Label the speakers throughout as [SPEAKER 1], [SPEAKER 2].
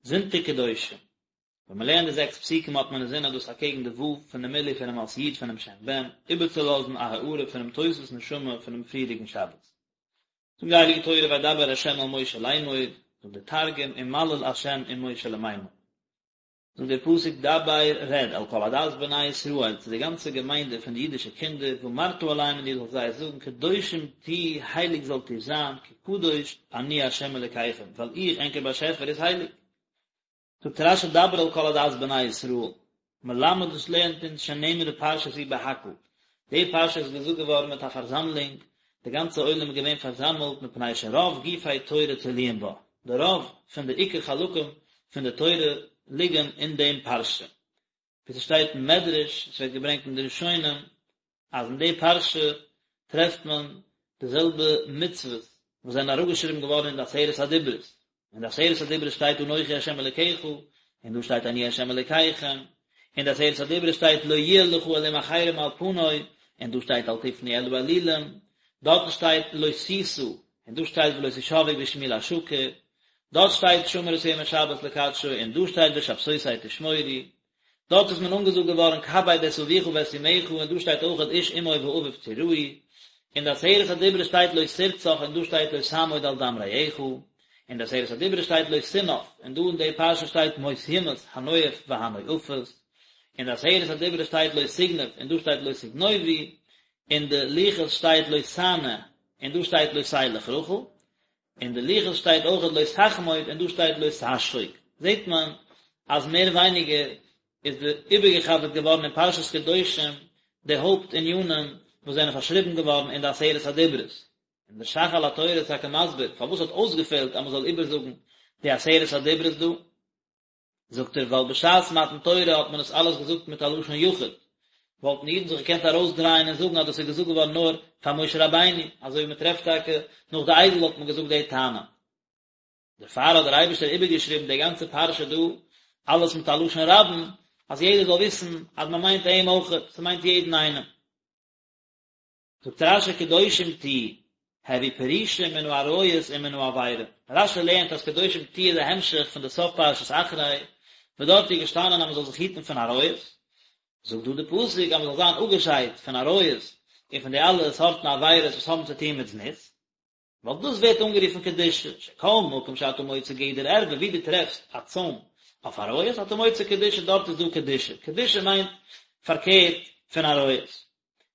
[SPEAKER 1] זונטאג קדושים. ווען מען לערנט די זעקס פסוקים האט מען אינזין אז דאס אקעגן די ו' פון די מילוי פונעם אות י' פונעם שם ב"ן, איבערצולאזן א הארה פונעם תוספות נשמה פונעם פריערדיגן שבת. זאגט די הייליגע תורה וידבר ה' אל משה לאמור, זאגט דער תרגום ומליל ה' עם משה למימר. זאגט דער פסוק דבר רעד אל כל עדת בני ישראל צו די גאנצע געמיינדע פון די אידישע קינדער ואמרת אליהם און דו זאלסט זיי זאגן קדושים תהיו הייליג זאלט איר זיין כי קדוש אני ה' אלקיכם ווייל איך ענקער באשעפער איז הייליג. זאגט רש"י דבר אל כל עדת בני ישראל, מלמד דאס לערנט אונז שנאמרה פרשה זו בהקהל, די פרשה איז געזאגט געווארן מיט א פארזאמלונג, די גאנצע עולם איז געווען פארזאמלט מפני שרוב גופי תורה תלויים בה, די רוב פון די עיקר חלקים פון די תורה ליגן אין דעם פרשה, ווי ס'שטייט אין מדרש, עס ווערט געברענגט אין די ראשונים, אז אין די פרשה טרעפט מען די זעלבע מצוות וואס זענען אראפגעשריבן געווארן אין די עשרת הדיברות, אין די עשרת הדיברות שטייט אנכי ה' אלקיך, און דא שטייט אני ה' אלקיכם, אין די עשרת הדיברות שטייט לא יהיה לך אלהים אחרים על פני, און דא שטייט אל תפנו אל האלילים, דארטן שטייט לא תשא, און דא שטייט ולא תשבעו בשמי לשקר, דארט שטייט שמור את יום השבת לקדשו, און דא שטייט ושבתותי תשמורו, דארט איז מען אנגעזאגט געווארן כבד את אביך ואת אמך, און דא שטייט אויכעט איש אמו ואביו תיראו, אין די עשרת הדיברות שטייט לא תרצח און דא שטייט לא תעמוד על דם רעך, אין די עשרת הדיברות שטייט לא תנאף, און דא אין די פרשה שטייט מות יומת הנואף והנואפת, אין די עשרת הדיברות שטייט לא תגנוב און דא שטייט לא תגנובו, אין די לוחות שטייט לא תענה און דא שטייט לא תלך רכיל, אין די לוחות שטייט אויכעט לא תחמוד און דא שטייט לא תשחוק, זעט מען אז מער ווייניגער איז די איבערגעחזרט געווארן אין פרשת קדושים די הויפט ענינים וואס זענען פארשריבן געווארן אין די עשרת הדיברות, און דער ש"ך על התורה איז טאקע מסביר פארוואס האט אויסגעפעלט אז מען זאל איבערזאגן די עשרת הדיברות דא. זאגט ער ווייל בשעת מתן תורה האט מען עס אלעס געזאגט מיט א לשון יחיד, וואלטן אידן זיך געקענט ארויסדרייען און זאגן אז דאס איז געזאגט געווארן נאר פאר משה רבינו, אזוי ווי מען טרעפט טאקע נאך די עגל האט מען געזאגט די טענה. דערפאר האט דער אייבערשטער איבערגעשריבן די גאנצע פרשה דא אלעס מיט א לשון רבים, אז יעדער זאל וויסן אז מען מיינט אים אויכעט, ס'מיינט יעדן איינעם. זאגט רש"י קדושים תהיו, הוו פרושים מן העריות ומן העבירה, רש"י לערנט אז קדושים תהיו איז א המשך פון די סוף פרשת אחרי, וואס דארט איז געשטאנען אז מען זאל זיך היטן פון עריות, זאגט דא די פסוק אז מען זאל זיין אפגעשיידט פון עריות און פון די אלע סארטן עבירות וואס האבן צו טון מיט זנות. ווייל דאס ווערט אנגערופן קדושה, שכל מקום שאתה מוצא גדר ערווה, ווי דו טרעפסט א צוים אויף עריות, אתה מוצא קדושה, דארט איז דא קדושה, קדושה מיינט פארקערט פון עריות,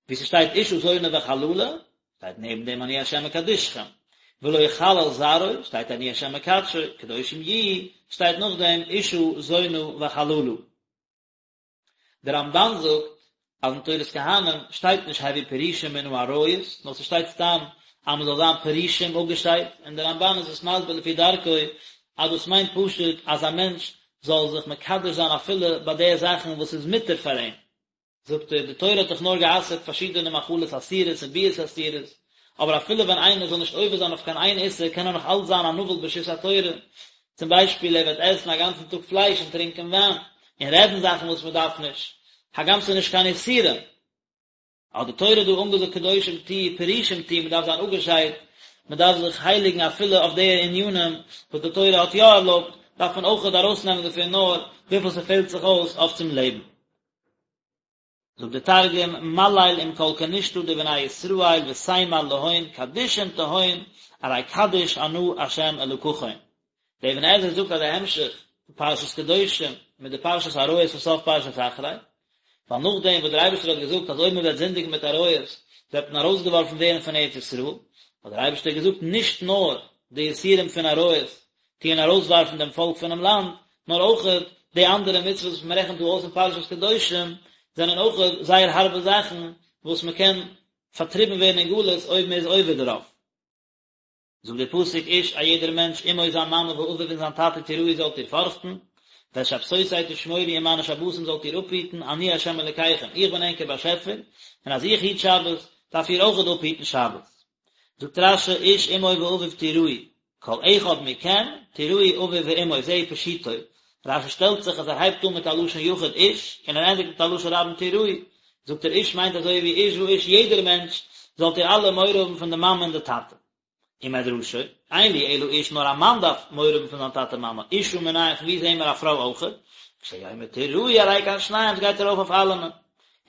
[SPEAKER 1] ווי ס'שטייט אשה זונה וחללה, שטייט נעבן דעם אני ה' מקדשכם, ולא יחלל זרעו, שטייט אני ה' מקדשו, קדושים יהיו, שטייט נאכדעם אשה זונה וחללה. דער רמב"ן זאגט אז אין תורת כהנים שטייט נישט הוו פרושים מן העריות, נאר ס'שטייט סתם אז מ'זאל זיין פרושים אפגעשיידט, און דער רמב"ן איז עס מסביר לפי דרכו אז דאס מיינט פשוט אז א מענטש זאל זיך מקדש זיין אפילו ביי די זאכן וואס איז מותר פאר אים. זאגט ער, די תורה האט דאך נאר גע'אסר'ט פארשידענע מאכלות אסורות און ביאות אסורות, אבער אפילו ווען איינער זאל נישט עובר זיין אויף קיין איין איסור קען ער נאך אלץ זיין א נבל ברשות התורה, צום ביישפיל ער וועט עסן א גאנצן טאג פלייש און טרינקען וויין, און רעדן זאכן וואס מען דארף נישט, הגם ס'איז נישט קיין איסורים. האט די תורה דא אנגעזאגט קדושים תהיו פרושים תהיו, מען דארף זיין אפגעשיידט, מען דארף זיך הייליגן אפילו אויף די ענינים וואס די תורה האט יא ערלויבט, דארף מען אויכעט ארויסנעמען דערפון נאר וויפיל ס'פעלט זיך אויס אויף צום לעבן. זאגט דער תרגום, מליל עם כל כנשתא דבני ישראל ותימר להון קדישין תהון ארי קדיש אנא ה' אלקכון. דער אבן עזרא זאגט אז די המשך פון פרשת קדושים מיט די פרשת עריות פון סוף פרשת אחרי, ווייל נאכדעם וואס דער אייבערשטער האט געזאגט אז אויב מען וועט זינדיגן מיט עריות וועט מען ארויסגעווארפן ווערן פון ארץ ישראל, האט דער אייבערשטער געזאגט נישט נאר די איסורים פון עריות טוען ארויסווארפן דעם פאלק פונעם לאנד, נאר אויכעט די אנדערע מצוות וואס מען רעכנט דא אויס אין פרשת קדושים, זענען אויכעט זייער הארבע זאכן וואס מען קען פארטריבן ווערן אין גלות אויב מען איז עובר דערויף. זאגט דער פסוק איש א יעדער מענטש אמו זיין מאמע ואביו און זיין טאטע תיראו זאלט איר פארכטן, ואת שבתותי תשמורו און מיינע שבתים זאלט איר אפהיטן, אני ה' אלקיכם, איך בין ענקער באשעפער, און אז איך היט שבת, דארף איר אויכעט אפהיטן שבת. זאגט רש"י איש אמו ואביו תיראו, כל אחד מכם תיראו אביו ואמו זהו פשוטו, רש"י שטעלט זיך אז ער הייבט אן מיט א לשון יחיד איש, און ער ענדיגט מיט א לשון רבים תיראו, זאגט ער איש מיינט אזוי ווי איש ואיש יעדער מענטש, זאלט איר אלע מורא האבן פון די מאמע און די טאטע. ומדרשו, אין לי אלא איש נאר א מאן דארף מורא האבן פון זיין טאטע מאמע, אשה מנין פון ווי זעהן מיר א פרוי אויכעט? כשהוא אומר תיראו הרי כאן שניהם ס'גייט ארויף אויף אלעמען.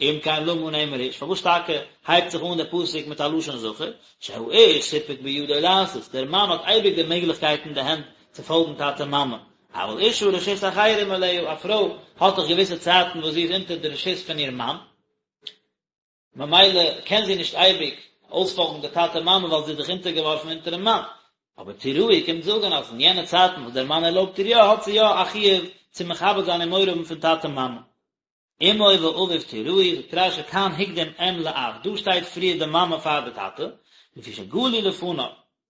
[SPEAKER 1] אם כן למה נאמר איש, פארוואס טאקע הייבט זיך אן דער פסוק מיט א לשון זכר? שהאיש סיפק בידו לעשות, דער מאן האט אייביג די מעגליכקייט אין די הענט צו פאלגן טאטע מאמע, אבל אשה רשות אחרים עליה, א פרוי האט דאך געוויסע צייטן וואס זי איז אונטער די רשות פון איר מאן, ממילא קען זי נישט אייביג אויספאלגן די טאטע מאמע ווייל זי איז דאך אונטערגעווארפן אונטערן מאן, אבער תיראו קומט זאגן אז אין יענע צייטן וואס דער מאן ערלויבט איר יא האט זי יא א חיוב צו מכבד זיין און מורא האבן פון טאטע מאמע. אמו ואביו תיראו, זאגט רש"י כאן הקדים אם לאב, דא שטייט פריער די מאמע פאר די טאטע, לפי שגלוי לפניו,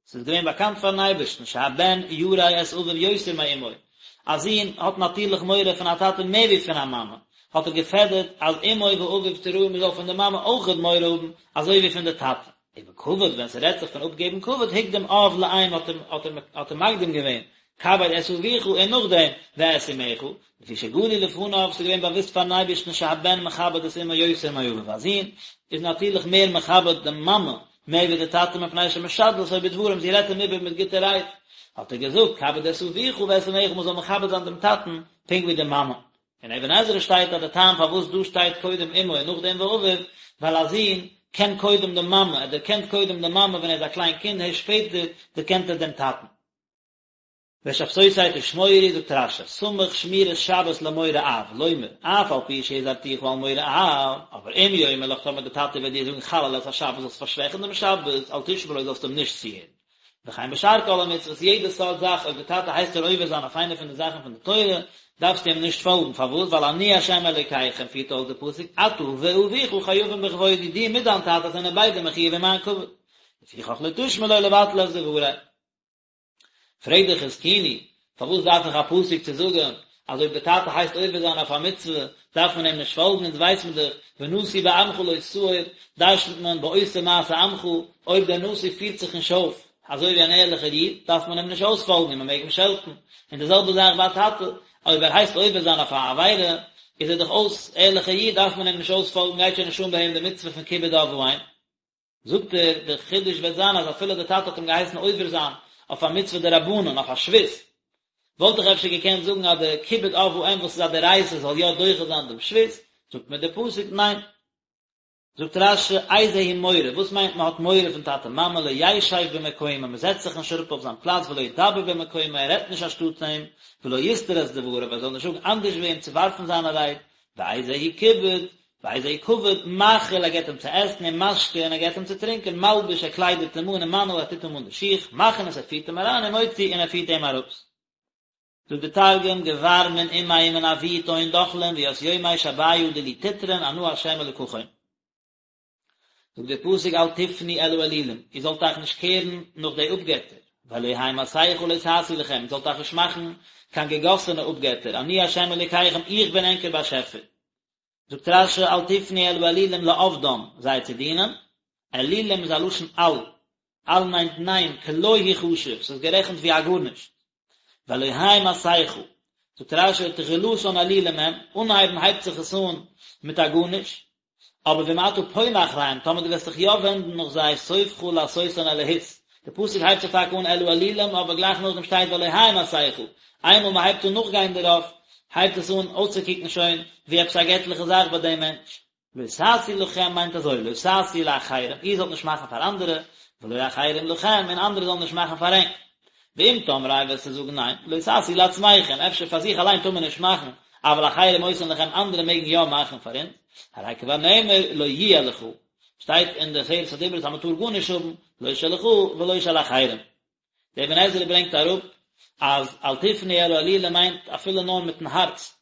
[SPEAKER 1] ס'איז געווען באקאנט פארן אייבערשטן שהבן ירא את אביו יותר מאמו, א זון האט נאטירליך מורא פון א טאטע מער ווי פון א מאמע, האט ער געפעדערט אז אמו ואביו תיראו מ'זאל פון די מאמע אויכעט מורא האבן אזוי ווי פון די טאטע. ובכבוד ווען ס'רעדט זיך פון אפגעבן כבוד הקדים אב לאם האט ער האט ער מקדים געווען כבד את אביך און נאכדעם ואת אמך, לפי שגלוי לפניו ס'איז געווען באוואוסט פארן אייבערשטן שהבן מכבד את אמו יותר מאביו א זון איז נאטירליך מער מכבד די מאמע מער ווי די טאטע מפני שמשדלתו בדברים זי רעדט אים איבער מיט גוטע רייד האט ער געזאגט כבד את אביך ואת אמך מ'זאל מכבד זיין דעם טאטן פונקט ווי די מאמע. אין אבן עזרא שטייט אז די טעם פארוואס דא שטייט קודם אמו און נאכדעם ואביו, ווייל א זון קען קודם די מאמע, ער דערקענט קודם די מאמע ווען ער איז א קליין קינד, הערשט שפעטער דערקענט ער דעם טאטן. ואת שבתותי תשמורו, זאגט רש"י, סמך שמירת שבת למורא אב, לומר, אף על פי שהזהרתיך על מורא אב, אבער אם יאמר לך טאמער די טאטע וועט דיר זאגן חלל את השבת זאלסט פארשוועכן דעם שבת, אל תשמע לו זאלסט אים נישט צוהערן. וכן בשאר כל המצוות, יעדע סארט זאך אויב די טאטע הייסט דיר עובר זיין אויף איינע פון די זאכן פון די תורה, דארפסטו אים נישט פאלגן, פארוואס? ווייל אני ה' אלוקיכם, פירט אויס די פסוק, אתה ואביך חייבים בכבודי, דו מיט דיין טאטע זענען ביידע מחויב אין מיין כבוד, לפיכך לא תשמע לו לבטל את דברי. פרעגט דער חזקוני, פארוואס דארף איך א פסוק צו זאגן אז אויב די טאטע הייסט עובר זיין אויף א מצוה דארף מען אים נישט פאלגן, אונז ווייס מען דאך ונשיא בעמך לא תאור, דרש'נט מען בעושה מעשה עמך, אויב דער נשיא פירט זיך נישט אויף אזוי ווי אן ערליכער איד דארף מען אים נישט אויספאלגן און מען מעג אים שעלטן, און די זעלבע זאך ביי א טאטע, אויב ער הייסט עובר זיין אויף א עבירה איז ער דאך אויס ערליכער איד דארף מען אים נישט אויספאלגן גייט שוין נישט אן ביי אים די מצוה פון כיבוד אב ואם. זאגט ער, דער חידוש וועט זיין אז אפילו דער טאטע האט אים געהייסן עובר זיין אויף א מצוה דרבנן, אויף א שבות, וואלט איך אפשר געקענט זאגן אז די כיבוד אב ואם וואס איז א דאורייתא זאל יא דוחה זיין דעם שבות, זאגט מיר דער פסוק ניין. זאגט רש"י, איזהו מורא, וואס מיינט מען האט מורא פון טאטע מאמע, לא ישב במקומו, מען זעצט זיך נישט אראפ אויף זיין פלאץ, ולא ידבר במקומו, ער רעדט נישט אנשטאט אים, ולא יסתור את דבריו, ער זאל נישט זאגן אנדערש ווי אים צו ווארפן זיינע רייד, ואיזהו כיבוד, ואיזהו כבוד, מאכיל, ער געבט אים צו עסן, ומשקה, און ער געבט אים צו טרינקען, מלביש, ער קליידעט אים אן, ומנעיל, ער טוט אים אן די שיך, מכניס, ער פירט אים אריין, ומוציא, און ער פירט אים ארויס. זאגט דער תרגום, גבר מן אמיה ומן אבוהי תהון דחלין, וית יומי שביא דילי תטרון, אנא ה' אלקכון. זאגט דער פסוק אל תפנו אל האלילים, איר זאלט אייך נישט קערן נאך די אפגעטער, ואלהי מסכה לא תעשו לכם, איר זאלט אייך נישט מאכן קיין געגאסענע אפגעטער, אני ה' אלוקיכם, איך בין ענקער באשעפער. זאגט רש"י אל תפנו אל האלילים לעבדם, זיי צו דינען, אלילים איז א לשון אל, אל מיינט ניין, כלא הוא חשוב, ס'איז גערעכנט ווי א גארנישט. ואלהי מסכה, זאגט רש"י תחילתן אלילים הם, אנהייבן הייבט זיך עס אן מיט א גארנישט, אבער ואם אתה פונה אחריהם, טאמער דו וועסט זיך יא ווענדן נאך זיי, סופך לעשותן אלהות. די פסוק הייבט זיך טאקע אן אל האלילים, אבער גלייך נאכדעם שטייט ואלהי מסכה. איינמאל מען הייבט אן נאכגיין דערויף, הייבט עס אן אויסצוקוקן שוין ווי עפעס א געטליכע זאך ביי דעם מענטש. לא תעשו לכם מיינט אזוי, לא תעשו לאחרים, איר זאלט נישט מאכן פאר אנדערע, ולא אחרים לכם, און אנדערע זאלן נישט מאכן פאר ענק. ואם תאמרו וועסטו זאגן ניין, לא תעשו לעצמכם, אפשר פאר זיך אליין טאר מען נישט מאכן, אבל אחרים עושין לכם אנדערע מעגן יא מאכן פאר אונז, הרי כבר נאמר לא יהיה לך, שטייט אין די עשרת הדיברות אז מען טאר גארנישט האבן, לא שלך ולא של אחרים. דער אבן עזרא ברענגט אראפ אז אל תפנו אל האלילים מיינט אפילו נאר מיטן הארץ,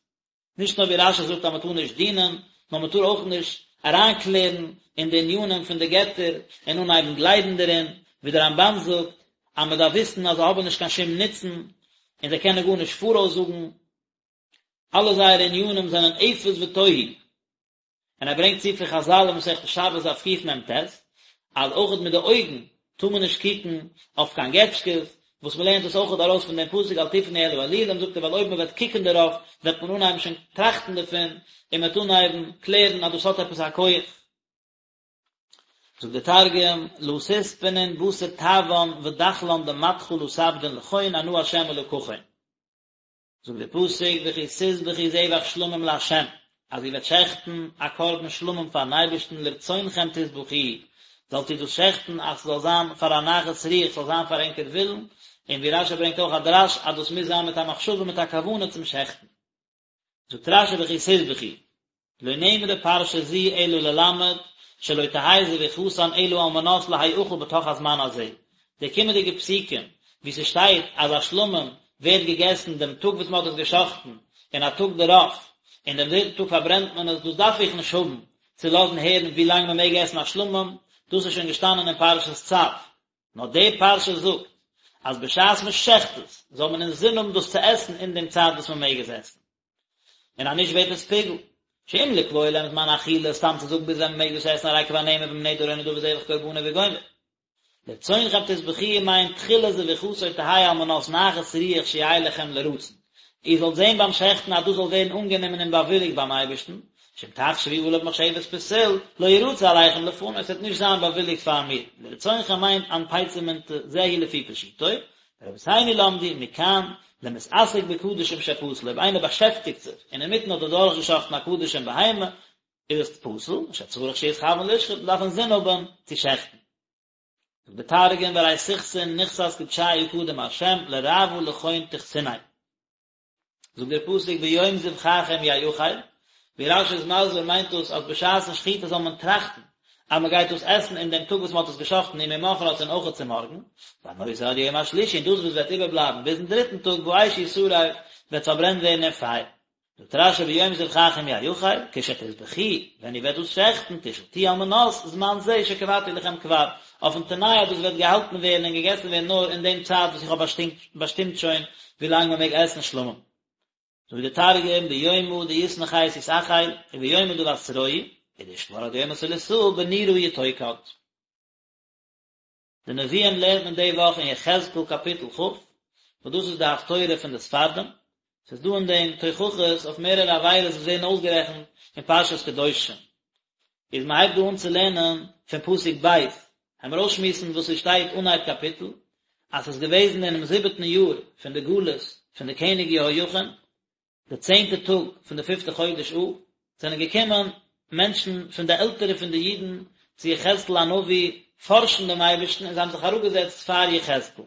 [SPEAKER 1] נישט נאר ווי רש"י זאגט אז מען טאר נישט דינען, נאר מען טאר אויך נישט אריינקלערן אין די ענינים פון די געטער און אנהייבן גלייבן דערין, ווי דער רמב"ן זאגט אז מען דארף וויסן אז זיי האבן נישט קיין שום נוצן און זיי קענען גארנישט פאראויס זאגן, אלע זייערע ענינים זענען אפס ותוהו. און ער ברענגט צו פון חז"ל אין מסכת שבת דף קמ"ט, אז אויכעט מיט די אויגן טאר מען נישט קוקן אויף קיין געטשקעס, וואס מען לערנט עס אויכעט ארויס פון דעם פסוק אל תפנו אל האלילים, זאגט ער ווייל אויב מען וועט קוקן דערויף וועט מען אנהייבן שוין טראכטן דערפון, און מען וועט אנהייבן קלערן אז דאס האט עפעס א כח. זאגט דער תרגום, לא תספנון בתר טעוון ודחלן דמתכא לא תעבדון לכון אנא ה' אלקכון. זאגט דער פסוק וכי תזבחו זבח שלמים לה', אז איר וועט שעכטן א קרבן שלמים פארן אייבערשטן לרצונכם תזבחוהו, זאלט איר דאס שעכטן אז ס'זאל זיין פאר א נחת רוח, ס'זאל זיין פאר ענקער ווילן, און ווי רשי ברענגט אויך א דרש אז דאס מוז זיין מיט א מחשבה מיט א כוונה צום שעכטן. זאגט רשי וכי תזבחו, לא נאמרה פרשה זו אלא ללמד שלא תהא זביחתן אלא על מנת להאכל בתוך הזמן הזה, די קומענדיגע פסוקים וואו ס'שטייט אז א שלמים ווערט געגעסן דעם טאג וואס מ'האט עס גע'שחט'ן און א טאג דערויף, און דעם דריטן טאג פארברענט מען עס, דאס דארף איך נישט האבן צו לאזן הערן ווי לאנג מ'מעג עסן א שלמים, דאס איז שוין געשטאנען אין פרשת צו. נאר די פרשה זאגט אז בשעת מען שעכט עס זאל מען אינזין האבן דאס צו עסן אין דעם צייט וואס מען מעג עס עסן, און אז נישט ווערט עס פיגול. שאם לקבוע להם זמן אכילה, סתם צו זאגן ביז ווען מען מעג דאס עסן הרי כבר נאמר ואם נדר או נדבה זבח קרבנו וגומר. לרצונכם תזבחוהו מיינט תחילת זביחתו תהא על מנת נחת רוח שיהא לכם לרצון. איר זאלט זען ביים שעכטן אז דאס זאל ווערן אנגענומען און באוויליגט ביים אייבערשטן, שאם תחשבו עליו מחשבת פסול, לא ירצה עליכם לפני, עס וועט נישט זיין באוויליגט פאר מיר, לרצונכם מיינט אנפציה מינתא, זהו לפי פשוטו, ורבותינו למדו מכאן, למתעסק בקדשים שפסול, אויב איינער באשעפטיגט זיך און אינמיטן האט ער דורכגעשאכטן א קדשים בהמה, איז עס פסול, שצריך שיתכוון לשחוט, מען דארף אינזין האבן צו שעכטן. זאגט דער תרגום וארי תכסון נכסת קדשיא קדם ה' לרעוא לכון תכסוניה. זאגט דער פסוק ביום זבחכם יאכל, ווי רשי איז מסביר מיינט דאס אז בשעת'ן שחיטה זאל מען טראכטן אז מען גייט דאס עסן אין דעם טאג וואס מען האט עס געשחט'ן וממחרת און אויכעט צומארגן, והנותר עד יום השלישי און דאס וואס וועט איבערבלייבן ביזן דריטן טאג באש ישרף וועט פארברענט ווערן אין פייער. זאגט רשי ביום זבחכם יאכל, כשתזבחוהו, ווען איר וועט דאס שעכטן, תשחטוהו על מנת זמן זה שקבעתי לכם כבר, אויפן תנאי אז דאס וועט געהאלטן ווערן און געגעסן ווערן נאר אין דעם צייט וואס איך האב באשטימט שוין ווי לאנג מען מעג עסן שלמים. זאגט דער תרגום, ביומא דיתנחית יתאכיל, וביומא דבתרוהי, ודאישתמר עד יומא תליתאה בנורא יתוקד. די נביאים לערנט מען די וואך אין יחזקאל קאפיטל כ', וואס דאס איז די הפטורה פון די ספרדים, ס'איז דא אין דעם תוכחות אויף מערערע עבירות וואס ווערן אויסגערעכנט אין פרשת קדושים. איז מען הייבט דא אן צו לערנען פון פסוק ב', העמיר אויסשמועסן וואס ס'שטייט אנהייב קאפיטל, אז ס'איז געוועזן אינעם זיבעטן יאר פון די גלות פון די קעניג יהויכין, די צענטע טאג פון די פיפטע חודש אב, זענען געקומען מענטשן פון די עלטערע פון די אידן צו יחזקאל הנביא פארשן דעם אייבערשטן און זיי האבן זיך אראפגעזעצט פאר יחזקאל.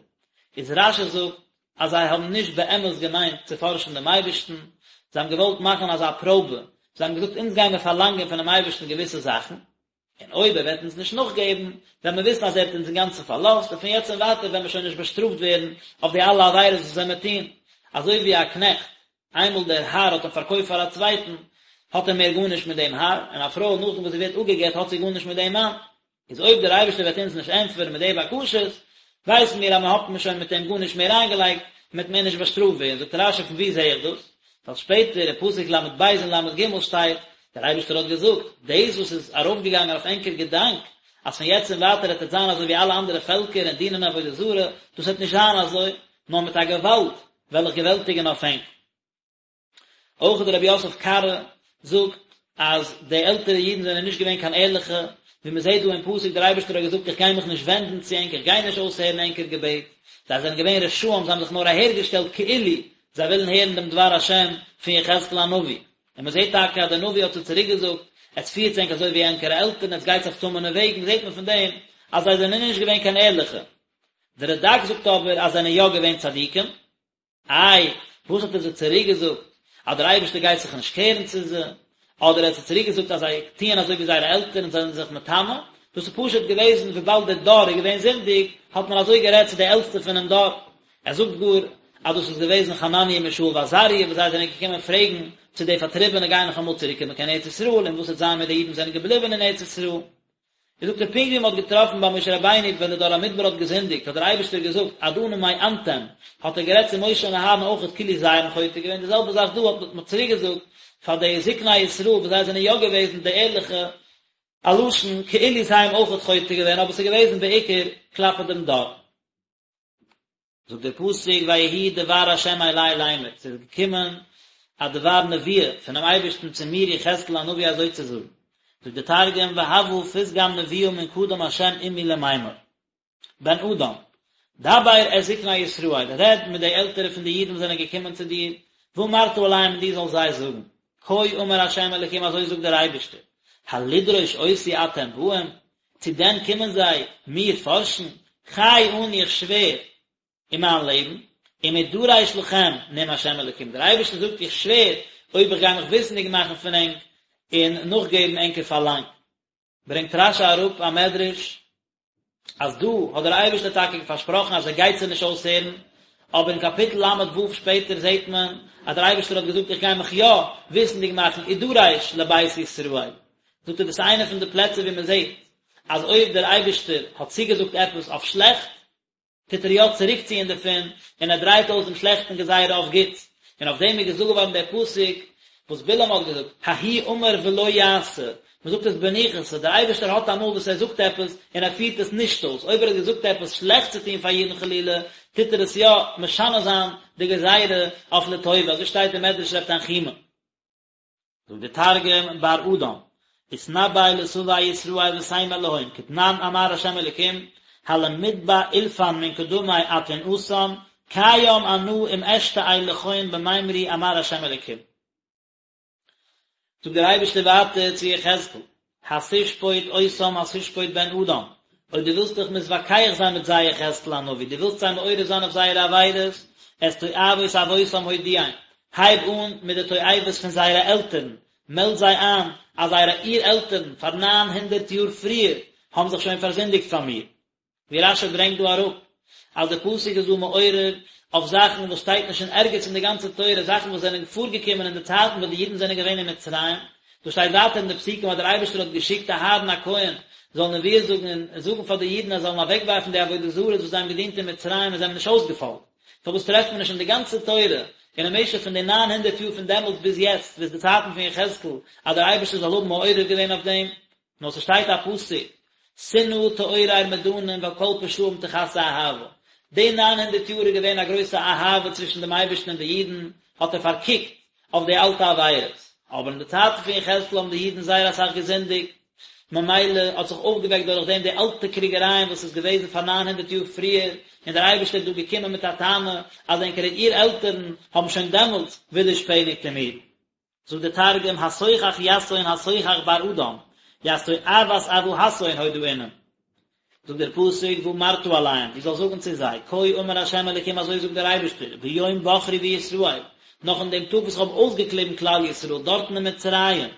[SPEAKER 1] איז רשי זאגט אז זיי האבן נישט באמת געמיינט צו פארשן דעם אייבערשטן, זיי האבן געוואלט מאכן אזא פראבע, זיי האבן געזאגט אונז גיימיר פארלאנגען פונעם אייבערשטן געוויסע זאכן, און אויב ער וועט אונז נישט נאכגעבן, וועלן מיר וויסן אז ער האט אונז אינגאנצן פארלאזט, און פון יעצט און ווייטער וועלן מיר שוין נישט באשטראפט ווערן אויף די אלע עבירות וואס וועלן מיר טון. אזוי ווי א קנעכט, איינמאל דער האר האט אים פארקויפט פאר א צווייטן, האט ער מער גארנישט מיט דעם האר, און א פרוי נאכדעם וואס זי ווערט אפגע'גט האט זי גארנישט מיט דעם מאן. איז אויב דער אייבערשטער וועט אונז נישט ענטפערן מיט די בקשות, ווייסן מיר אז מען האט מען שוין מיט אים גארנישט מער איינגעלייגט, און מען וועט מער נישט באשטראפט ווערן. זאגט רשי פון וואו זע איך דאס? ווייל שפעטער אין פסוק ל"ב און ל"ג שטייט, דער אייבערשטער האט געזאגט, דאס וואס איז ארויפגעגאנגען אויף ענקער געדאנק, אז פון יעצט און ווייטער וועט עטס זיין אזוי ווי אלע אנדערע פעלקער און דינען עבודה זרה, דאס וועט נישט זיין אזוי, נאר מיט א געוואלד וועל איך געוועלטיגן אויף ענק. אויך דער רבי יוסף קארו זאגט אז די עלטערע אידן זענען נישט געווען קיין ערליכע, ווי מען זעט דא אין פסוק דער אייבערשטער האט געזאגט איך גיי מיך נישט ווענדן צו ענק, איך גיי נישט אויסהערן ענקער געבעט, זיי זענען געווען רשעים, זיי האבן זיך נאר אהערגעשטעלט כאילו זיי ווילן הערן דעם דבר השם פון יחזקאל הנביא, און מען זעט טאקע אז דער נביא האט זיי צוריק געזאגט, עטס פירטס ענק אזוי ווי ענקערע עלטערן, עטס גייטס אויף טמא'נע וועגן, זעט מען פון דעם אז זיי זענען נישט געווען קיין ערליכע. דער רד"ק זאגט אבער אז זיי זענען יא געווען צדיקים. איי, וואס האט ער זיי צוריק געזאגט? אז דער אייבערשטער גייט זיך נישט קערן צו זיי? אדער ער האט זיי צוריק געזאגט אז זיי טוען אזוי ווי זייערע עלטערן זענען זיך מטמא? דאס איז פשוט געוועזן וויבאלד דער דור איז געווען זינדיג, האט מען אזוי גערעדט צו די עלטסטע פונעם דור. ער זאגט גאר אז דאס איז געוועזן חנניה מישאל ועזריה וואס זיי זענען געקומען פרעגן צו די פארטריבענע גייען נאך אמאל צוריקקומען קיין ארץ ישראל און וואס וועט זיין מיט די אידן וואס זענען געבליבן אין ארץ ישראל. איז זאגט ער פונקט ווי מען האט געטראפן ביי משה רבינו ווען די דור המדבר האט געזינדיגט האט דער אייבערשטער געזאגט עד אנה מאנתם האט ער גערעדט צו משה און אהרן אויכעט כאילו זיי האבן חוטא געווען די זעלבע זאך דא האט מען צוריק געזאגט פאר די זקני ישראל וואס זיי זענען יא געוועזן די ערליכע א לשון כאילו זיי האבן אויכעט חוטא געווען אבער ס'איז געוועזן בעיקר כלפי דעם דור. זאגט דער פסוק ויהי דבר ה' אלי לאמר, ס'איז געקומען א דבר נבואה פונעם אייבערשטן צו מיר יחזקאל הנביא אזוי צו זאגן, זאגט דער תרגום והוה פתגם נבואה מן קדם ה' עמי למימר. בן אדם, דבר את זקני ישראל, רעד מיט די עלטערע פון די אידן וואס זענען געקומען צו דיר, ואמרת אליהם און דו זאלסט זיי זאגן, כה אמר ה' אלוקים אזוי זאגט דער אייבערשטער, הלדרוש אותי אתם באים, צו דען קומען זיי מיר פארשן, חי אני איך שווער אין מיין לעבן, אם אדרש לכם נאם ה' אלוקים, דער אייבערשטער זאגט איך שווער אויב איך גיי מיך וויסנדיג מאכן פון ענק און נאכגעבן ענקער פארלאנג. ברענגט רש"י אראפ א מדרש אז דא האט דער אייבערשטער טאקע פארשפראכן אז ער גייט זיי נישט אויסהערן, אבער אין קאפיטל ל"ו שפעטער זעט מען אז דער אייבערשטער האט געזאגט איך גיי מיך יא וויסנדיג מאכן אדרש לבית ישראל, זאגט ער דאס איז איינע פון די פלעצער ווי מען זעט אז אויב דער אייבערשטער האט צוגעזאגט עפעס אויף שלעכט, טוט ער יא צוריקציען דערפון, און ער דרייט אויס דעם שלעכטן גזירה אויף גוטס, און אויף דעם איז געזאגט געווארן דער פסוק וואס בלעם האט געזאגט, ההוא אמר ולא יעשה, מען זאגט עס בניחותא, דער אייבערשטער האט אמאל וואס ער זאגט עפעס און ער פירט עס נישט אויס, אויב ער האט געזאגט עפעס שלעכטס צו טון פאר אידן חלילה, טוט ער עס יא משנה זיין די גזירה אויף לטובה, אזוי שטייט אין מדרש רב תנחומא. זאגט דער תרגום בר אדם, אתנבי לסבי ישראל ותימר להון כדנן אמר ה' אלקים, הלמתבע אולפן מן קדמי אתון אתן, קיים אנא אם אשתעי לכון במימרי אמר ה' אלקים. זאגט דער אייבערשטער ווייטער צו יחזקאל, התשפוט אותם התשפוט בן אדם, אויב דו ווילסט דיך מתווכח זיין מיט זיי יחזקאל הנביא, דו ווילסט זיי מעורר זיין אויף זייערע עבירות, את תועבות אבותם הודיעם, הייב אן מיט די תועבות פון זייערע עלטערן, מעלד זיי איין אז זייערע אור עלטערן פאר ניין הונדערט יאר פריער האבן זיך שוין פארזינדיגט פאר מיר. ווי רש"י ברענגט דא אראפ אז די פסוק איז דא מעורר אויף זאכן וואס שטייט נישט אין ערגעץ אין די גאנצע תורה, זאכן וואס זענען פארגעקומען אין די צייטן וואס די אידן זענען געווען אין מצרים, דא שטייט ווייטער אין די פסוקים אז דער אייבערשטער האט געשיקט אהרן הכהן זאל נביאות זאגן און זאגן פאר די אידן אז זיי זאלן אוועקווארפן די עבודה זרות וואס זיי האבן געדינט אין מצרים און זיי האבן נישט אויסגעפאלגט. פארוואס טרעפט מען נישט אין די גאנצע תורה און אין משך פון די ניין הונדערט יאר פון דעמאלטס ביז יעצט ביז די צייטן פון יחזקאל אז דער אייבערשטער זאל האבן מעורר געווען אויף דעם? נאר ס'שטייט א פסוק, שנאה תעורר מדנים ועל כל פשעים תכסה אהבה. די ניין הונדערט יאר איז געווען א גרויסע אהבה צווישן דעם אייבערשטן און די אידן, האט ער פארקוקט אויף די אלטע עבירות. אבער אין די צייטן פון יחזקאל האבן די אידן זייער אסאך געזינדיגט, ממילא האט זיך אויפגעוועקט דורך דעם די אלטע קריגערייען וואס איז געוועזן פאר ניין הונדערט יאר פריער, און דער אייבערשטער איז דא געקומען מיט א טענה אז ענקערע אור עלטערן האבן שוין דעמאלטס ווידערשפעניגט אין מיר. זאגט דער תרגום, התוכח יתהון התוכח בר אדם, ית תועבת אבהתהון הודעינן. זאגט דער פסוק, ואמרת אליהם, דו זאלסט זאגן צו זיי, כה אמר ה' אלוקים אזוי זאגט דער אייבערשטער, ביום בחרי בישראל, נאך אין דעם טאג וואס איך האב אויסגעקליבן כלל ישראל דארטן אין מצרים,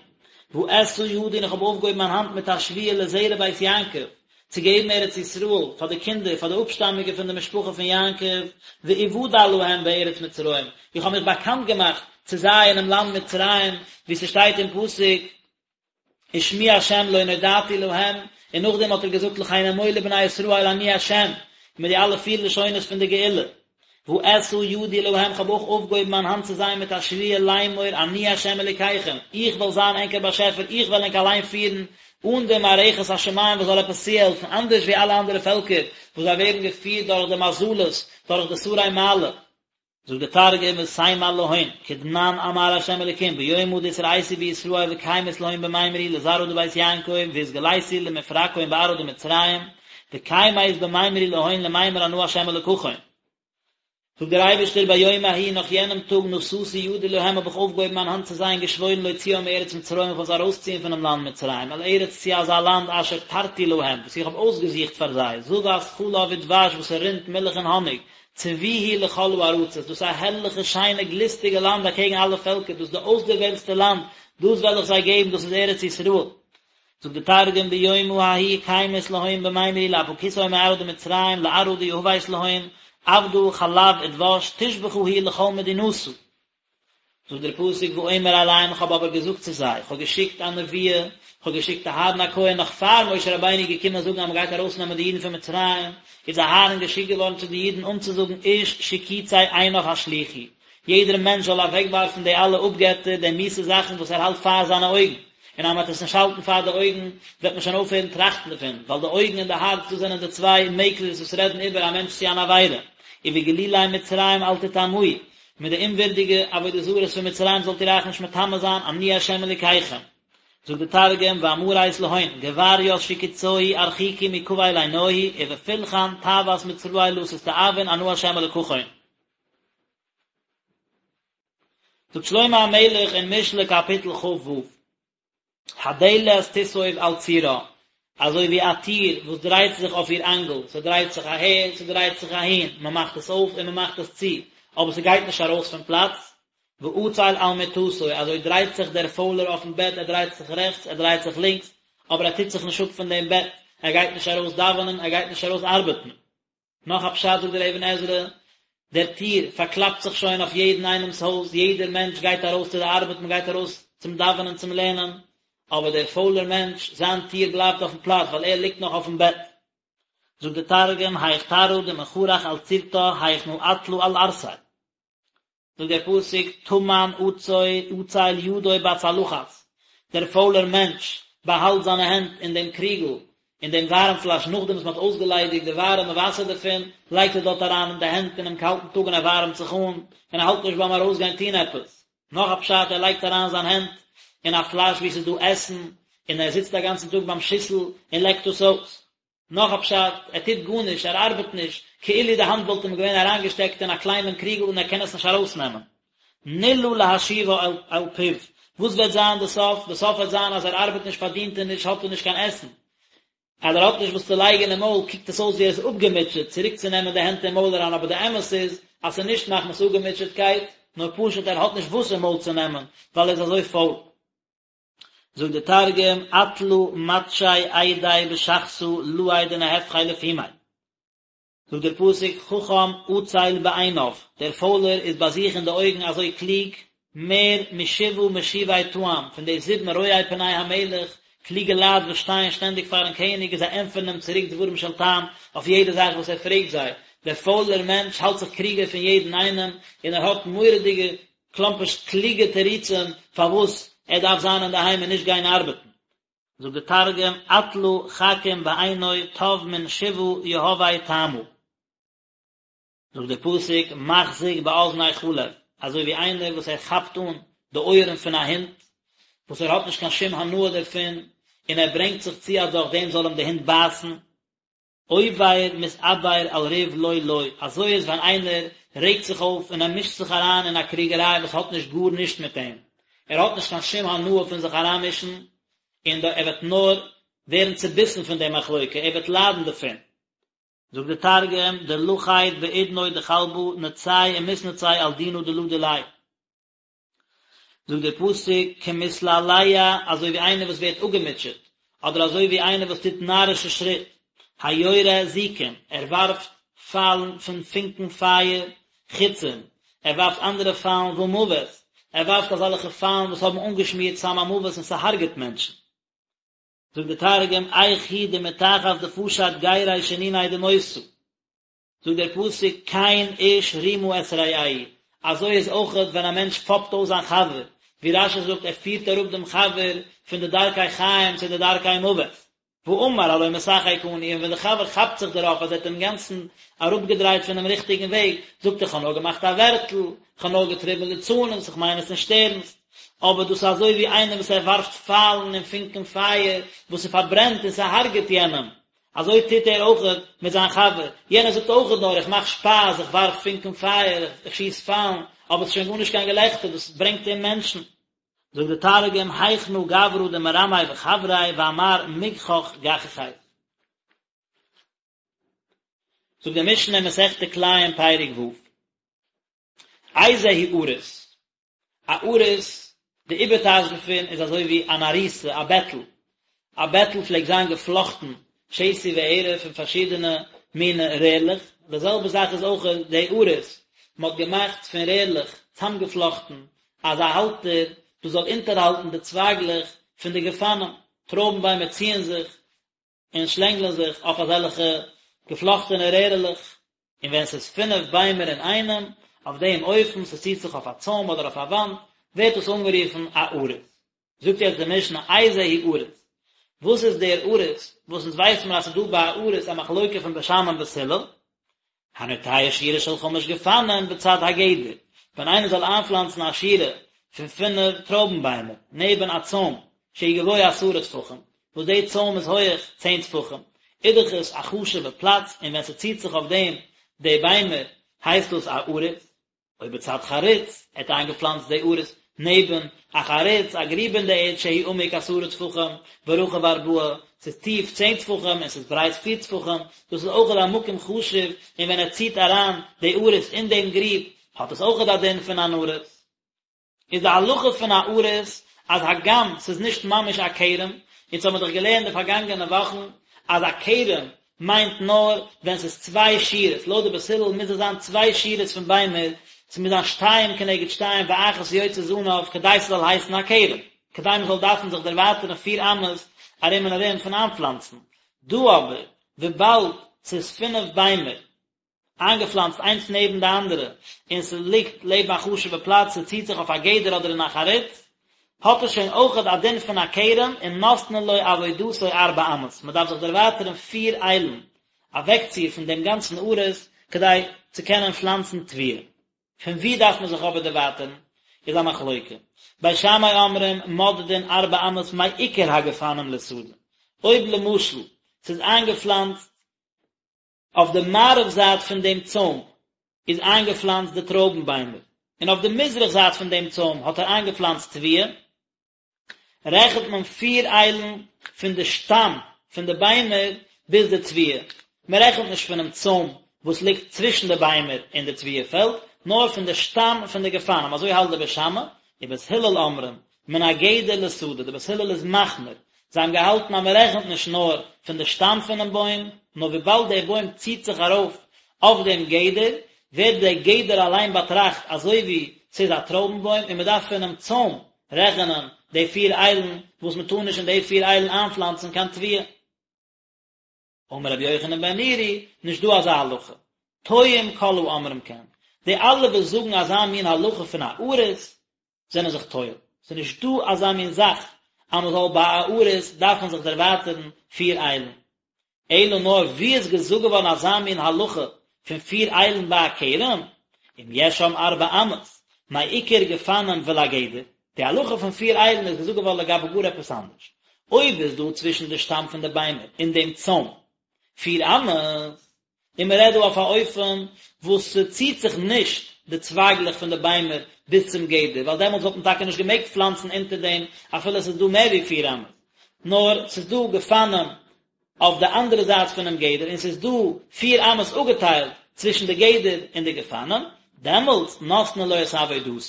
[SPEAKER 1] ואשא ידי און איך האב אויפגעהויבן מיין האנט מיט א שבועה לזרע בית יעקב, צו געבן ארץ ישראל פאר די קינדער, פאר די אפשטאמיגע פון די משפחה פון יעקב, ואודע להם בארץ מצרים, איך האב מיך באקאנט געמאכט צו זיי אינעם לאנד מצרים, ווי ס'שטייט אין פסוק, ושמי השם לא נודעתי להם, און נאכדעם האט ער געזאגט לכן אמור לבני ישראל אני השם, מיט די אלע פיר לשונות פון די גאולה. ואשא ידי להם כ'האב אויך אויפגעהויבן מיין האנט צו זיי מיט א שבועה לאמור אני ה' אלוקיכם, איך וועל זיין ענקער באשעפער, איך וועל ענק אליין פירן, אן די מערכת השמים וואס זאל עפעס צוהעלפן, אנדערש ווי אלע אנדערע פעלקער וואס זיי ווערן געפירט דורך די מזלות, דורך די שרי מעלה. זאגט די תרגום ותימר להון, כדנן אמר ה' אלקים ביומא דאתרעיתי בישראל וקיימית להון במימרי לזרעא דבית יעקב ואתגליתי למפרקהון בארעא דמצרים, וקיימית במימרי להון למימר אנא ה' אלקכון. זאגט דער אייבערשטער ביום ההוא נאך יענעם טאג נשאתי ידי להם האב איך אויפגעהויבן מיין האנט צו זיי און געשוואוירן להוציאם מארץ מצרים איך וועל זיי ארויסציען פונעם לאנד מצרים אל ארץ צו אזא לאנד אשר תרתי להם וואס איך האב אויסגעזוכט פאר זיי זבת חלב ודבש וואס ס'רינט מילך און האניג צבי היא לכל הארצות דאס איז א הערליכע שיינע גליסטיגע לאנד אקעגן אלע פעלקער דאס איז די אויסדערוועלטסטע לאנד דאס וועל איך זיי געבן דאס איז ארץ ישראל זאגט די תרגום ביומא ההוא קיימית להון במימרי לאפקותהון מארעא דמצרים לארעא דיהבית להון עבדא חלב ודבש תושבחא היא לכל מדינתא. זאגט דער פסוק ואומר אליהם איך האב אבער געזאגט צו זיי, איך האב געשיקט א נבואה, איך האב געשיקט אהרן הכהן נאך פאר משה רבינו איז געקומען זאגן אז מען גייט ארויסנעמען די אידן פון מצרים, איז אהרן געשיקט געווארן צו די אידן אנצוזאגן איש שקוצי עיניו השליכו, יעדער מענטש זאל אוועקווארפן די אלע אפגעטער, די מיאוסע זאכן וואס ער האלט פאר זיינע אויגן, און אז מען וועט עס נישט האלטן פאר די אויגן, וועט מען שוין אויפהערן טראכטן דערפון, ווייל די אויגן און די הארץ, דאס זענען די צוויי מעקלערס וואס רעדן איבער א מענטש צו אן עבירה. ובגלולי מצרים אל תטמאו, מיט די אומווירדיגע עבודה זרות פון מצרים זאלט איר אייך נישט מטמא זיין, אני ה' אלוקיכם. זאגט די תרגום, ואמרית להון, גברית שקוצוהי ארחיקו מקבל עינוהי, ובפילכן תאוות מצראי לא תסתאבון אנא ה' אלקכון. זאגט שלמה המלך אין משלי קאפיטל כ"ו, הדלת תסוב על צירה, אזוי ווי א טיר וואס דרייט זיך אויף איר אנגל, ס'דרייט זיך אהער, ס'דרייט זיך אהין, מ'מאכט עס אויף און מ'מאכט עס צו, אבער ס'גייט נישט ארויס פון פלאץ, ועצל על מטתו, אזוי דרייט זיך דער פוילער אויפן בעט, ער דרייט זיך רעכטס, ער דרייט זיך לינקס, אבער ער טוט זיך נישט אפ פון דעם בעט, ער גייט נישט ארויס דאווענען, ער גייט נישט ארויס ארבעטן. נאך א פשט זאגט דער אבן עזרא, דער טיר פארקלאפט זיך שוין אויף יעדן איינעמ'ס הויז, יעדער מענטש גייט ארויס צו די ארבעט, מען גייט ארויס צום דאווענען, צום לערנען, אבער דער פוילער מענטש, זיין טיר בלייבט אויפן פלאץ, ווייל ער ליגט נאך אויפן בעט. זאגט דער תרגום, היך תרעא דמכרך על צירתא היכנא עטלא על ערסיה. זאגט דער פסוק טמן עצל ידו בצלחת, דער פוילער מענטש באהאלט זיינע הענט אין דעם קריגל, אין דעם ווארעם פלאש, נאכדעם וואס מען האט אויסגעליידיגט די ווארעמע וואסער דערפון, לייגט ער דארט אריין די הענט אינעם קאלטן טאג און ער ווארעמט זיך אן, און ער האלט נישט ביים ארויסגיין טון עפעס. נאך א פשט, ער לייגט אריין זיין הענט אין א פלאש וואו עס איז דא עסן, און ער זיצט א גאנצן טאג ביים שיסל און לעקט עס אויס. נאך א פשט, ער טוט גארנישט, ער ארבעט נישט, כאילו די האנט וואלט אים געווען אריינגעשטעקט אין א קליינעם קריגל און ער קען עס נישט ארויסנעמען. נלאה להשיבה אל פיו, וואס וועט זיין די סוף? די סוף וועט זיין אז ער ארבעט נישט, פארדינט ער נישט, האט ער נישט קיין עסן. אז ער האט נישט וואס צו לייגן אין מויל קוקט עס אויס ווי ער איז אפגעמוטשעט צוריקצונעמען די הענט אין מויל אריין, אבער די אמת איז אז ס'איז נישט מחמת אפגעמוטשעטקייט, נאר פשוט ער האט נישט וואס אין מויל צו נעמען, ווייל ער איז אזוי פויל. זאגט דער תרגום, עטלא מטשי אידיה בשחתא לאי דנהפכיה לפומיה. זאגט דער פסוק, חכם עצל בעיניו, דער פוילער איז ביי זיך אין די אויגן אזוי קלוג, מער משבעה משיבי טעם, פון די זיבן רואי פני המלך, קלוגע לייט וואס שטייען שטענדיג פארן קעניג און זיי ענטפערן אים צוריק דברים של טעם אויף יעדע זאך וואס ער פרעגט זיי. דער פוילער מענטש האלט זיך קלוגער פון יעדן איינעם, און ער האט מורא'דיגע כלומרשט קלוגע תירוצים פארוואס ער דארף זיין אינדערהיים און נישט גיין ארבעטן. זאגט דער תרגום, עטלא חכים בעינוי טב מן שבעה יהבי טעמא. זאגט דער פסוק, מחזיק באזני כלב, אזוי ווי איינער וואס ער כאפט אן די אויערן פון א הונט, וואס ער האט נישט קיין שום הנאה דערפון, און ער ברענגט זיך צו אז דורך דעם זאל אים די הונט בייסן. עובר מתעבר על ריב לא לו, אזוי איז ווען איינער רעגט זיך אויף און ער מישט זיך אריין אין א קריגעריי וואס האט נישט גארנישט מיט אים, ער האט נישט קיין שום הנאה פון זיך אריינמישן, און ער וועט נאר ווערן צוביסן פון די מחלוקה, ער וועט ליידן דערפון. זאגט די תרגום, דלכיד באודנוי דכלבא נצי ומתנצי על דינא דלא דיליה. זאגט דער פסוק כמתלהלה אזוי ווי איינער וואס ווערט אפגעמוטשעט, אדער אזוי ווי איינער וואס טוט נארישע שריט, היורה זיקים, ער ווארפט פיילן פון פונקן פייער, חיצים, ער ווארפט אנדערע פיילן ומוות, ער ווארפט אזעלכע פיילן וואס האבן אנגעשמירט סם המוות און ס'הרג'עט מענטשן. זאגט דער תרגום, איך הוא דמתחת דפשט גירי שניני דמותא. זאגט דער פסוק כן איש רמה את רעהו, אזוי איז אויכעט ווען א מענטש פאפט אויס זיין חבר, ווי רש"י זאגט ער פירט אראפ דעם חבר פון די דרכי חיים צו די דרכי מוות, ואמר הלא משחק אני, און ווען דער חבר כאפט זיך דערויף אז ער האט אים אינגאנצן אראפגעדרייט פונעם ריכטיגן וועג, זאגט ער כ'האב נאר געמאכט א ווערטל, כ'האב נאר געטריבן ליצנות, איך מיין עס נישט ערנסט. אבער דאס איז אזוי ווי איינער וואס ער ווארפט פיילן און פונקען פייער וואס ס'פארברענט און ס'הרג'עט יענעם, אזוי טוט ער אויכעט מיט זיין חבר, יענער זאגט אויכעט נאר איך מאך שפאס, איך ווארף פונקען פייער, איך שיס פיילן, אבער עס איז שוין גארנישט קיין געלעכטער, דאס ברענגט אום מענטשן. זאגט די תרגום, היכנא גברא דמרמי בחבריה ואמר מגחך גחכית. זאגט די משנה אין מסכת כלאים פרק ו', איזהו עריס? א עריס, די איבערטייטש דערפון איז אזוי ווי אן עריסה, א בעטל. א בעטל פלעגט זיין געפלאכטן שתי וערב פון פארשידענע מינע רערלעך, די זעלבע זאך איז אויך די עריס, מען האט געמאכט פון רערלעך צאמגעפלאכטן אזא האלטער וואס זאל אונטערהאלטן די צווייגלעך פון די גפנים, טרויבן ביימער ציען זיך און שלענגלען זיך אויף אזעלכע געפלאכטענע רערעלעך, און ווען ס'איז פינף ביימער אינאיינעם, אויף דעם אופן, ס'ציט זיך אויף א צוים אדער אויף א וואנט, ווערט עס אנגערופן א עריס. זאגט יעצט די משנה, איזהו עריס? וואס איז דער עריס, וואס אונז ווייסן מיר אז ס'איז דא ביי א עריס א מחלוקה פון בית שמאי און בית הלל? הנוטע שורה של חמש גפנים בצד הגדר, ווען איינער זאל איינפלאנצן א שורה פון פינף טרויבן ביימער נעבן א צוים, שהוא גבוה עשרה טפחים, וואס די צוים איז הויעך צען טפחים, איז דאך עס א חשוב'ע פלאץ און ווען ס'ציט זיך אויף דעם די ביימער הייסט דאס א עריס, או בצד חריץ, ער האט איינגעפלאנצט די עריס נעבן א חריץ, א גריב אין די ערד שהוא עמוק עשרה טפחים ורחב ארבעה, ס'איז טיף צען טפחים און ס'איז ברייט פיר טפחים, דאס איז אויכעט א מקום חשוב און ווען ער ציט אריין די עריס אין דעם גריב האט עס אויכעט א דין פון אן עריס. איז די הלכה פון א עריס אז הגם ס'איז נישט ממש א כרם, אונז האמיר דאך געלערנט די פארגאנגענע וואכן אז א כרם מיינט נאר ווען ס'איז צוויי שורות, לויט די בית הלל מוז עס זיין צוויי שורות פון ביימער, ס'מוז זיין שתיים כנגד שתיים ואחת יוצא זנב כדי ס'זאל הייסן א כרם, כדי מ'זאל דארפן זיך דערווייטערן פיר אמות ארום און ארום פון איינפלאנצן, דא אבער וויבאלד ס'איז פינף ביימער איינגעפלאנצט איינס נעבן די אנדערע, און ס'ליגט לעבן א חשוב'ע פלאץ, ס'ציט זיך אויף א גדר אדער אין א חריץ, האט עס שוין אויכעט א דין פון א כרם, און נותנין לו עבודתו ארבע אמות, מ'דארף זיך דערווייטערן פיר איילן אוועקציר פון דעם גאנצן עריס, כדי צו קענען פלאנצן תבואה. פון וואו דארף מען זיך אבער דערווייטערן, איז א מחלוקה. בית שמאי אומרים מודדין ארבע אמות מעיקר הגפנים לשדה, אויב למשל ס'איז איינגעפלאנצט אויף די מערב זייט פון דעם צוים איז איינגעפלאנצט די טרויבן ביימער, און אויף די מזרח זייט פון דעם צוים האט ער איינגעפלאנצט תבואה, רעכנט מען פיר איילן פון די שטאם פון די ביימער ביז די תבואה, מען רעכנט נישט פונעם צוים וואס ליגט צווישן די ביימער און די תבואה פעלד, נאר פון די שטאם פון די גפנים, אזוי האלט די בית שמאי, ובית הלל אומרים, מן הגדר לשדה, די בית הלל איז מחמיר, זיי האבן געהאלטן אז מען רעכנט נישט נאר פון די שטאם פונעם בוים, נאר וויבאלד דער בוים ציט זיך ארויף אויף דעם גדר, ווערט דער גדר אליין באטראכט אזוי ווי ס'איז א טרויבן בוים און מען דארף פונעם צוים רעכענען די פיר איילן וואס מען טאר נישט אין די פיר איילן איינפלאנצן קיין תבואה. אמר רבי יוחנן בן נורי, נישט דא אזא הלכה. טועים כל האומרים כן. די אלע וואס זאגן אזא מין הלכה פון א עריס, זענען זיך טועה. ס'איז נישט דא אזא מין זאך אז מען זאל ביי א עריס דארפן זיך דערווייטערן פיר איילן. אלא נאר וואו איז געזאגט געווארן אזא מין הלכה פון פיר איילן ביי א כרם, אם יש שם ארבע אמות, מעיקר גפנים ולגדר, די הלכה פון פיר איילן איז געזאגט געווארן לגבי גאר עפעס אנדערש. אויב איז דא צווישן די שטאם פון די ביימער און דעם צוים פיר אמות, און מען רעדט דא אויף א אופן וואס ס'ציט זיך נישט די צווייגלעך פון די ביימער ביז צום גדר, ווייל דעמאלטס וואלט מען טאקע נישט געמעגט פלאנצן אונטער דעם אפילו עס איז דא מער ווי פיר אמות, נאר ס'איז דא גפנים אויף די אנדערע זייט פונעם גדר און ס'איז דא פיר אמות אפגעטיילט צווישן די גדר און די גפנים, דעמאלטס נותנין לו את עבודתו,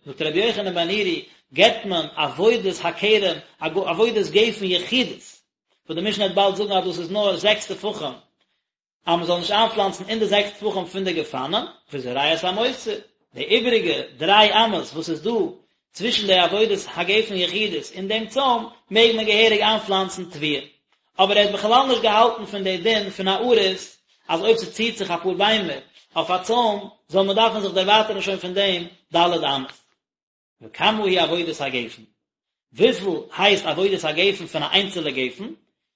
[SPEAKER 1] זאגט רבי יוחנן בן נורי, געבט מען עבודת הכרם, עבודת גפן יחידית, וואס די משנה וועט באלד זאגן אז דאס איז נאר זעקס טפחים, אז מען זאל נישט איינפלאנצן אין די זעקס טפחים פון די גפנים, וזורע את המותר, די איבעריגע דריי אמות וואס איז דא צווישן די עבודת הגפן יחידית און דעם צוים, מעג מען געהעריג איינפלאנצן תבואה. אבער ער האט בכלל נישט געהאלטן פון די דין פון א עריס, אז אויב ס'ציט זיך אפאר ביימער אויף א צוים, זאל מען דארפן זיך דערווייטערן שוין פון דעם ד' אמות. וכמה היא עבודת הגפן? וויפיל הייסט עבודת הגפן פון א איינצעלע גפן?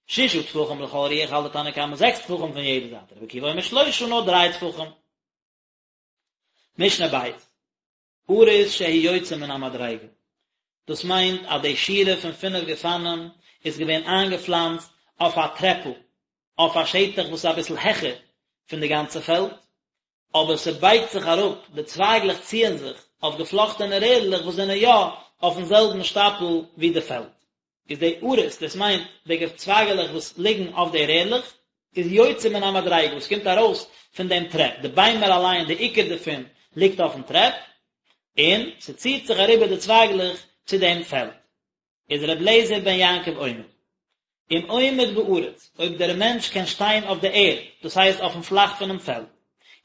[SPEAKER 1] ששה טפחים לכל רוח האלט די תנא קמא זעקס טפחים פון יעדע זייט, רבי עקיבא אומר שלושה נאר דריי טפחים. משנה ב', עריס שהוא יוצא מן המדריגה, דאס מיינט אז די שורה פון פינף גפנים איז געווען איינגעפלאנצט אויף א טרעפל, אויף א שטח וואס איז אביסל העכער פון די גאנצע פעלד, אבער ס'בייגט זיך אראפ, די צווייגלעך ציען זיך אויף געפלאכטענע רערלעך וואס זענען יא אויפן זעלבן שטאפל ווי די פעלד. איז די עריס, דאס מיינט די צווייגעלעך וואס ליגן אויף די רערלעך, איז יוצא מן המדריגה, וואס קומט ארויס פון דעם טרעפ, די ביימער אליין, די עיקר דערפון, ליגט אויפן טרעפ, און ס'ציט זיך אריבער די צווייגלעך צו דעם פעלד. איז ר' אליעזר בן יעקב אומר, אם עומד בארץ, אויב דער מענטש קען שטיין אויף די ערד, דאס הייסט אויפן פלאך פונעם פעלד,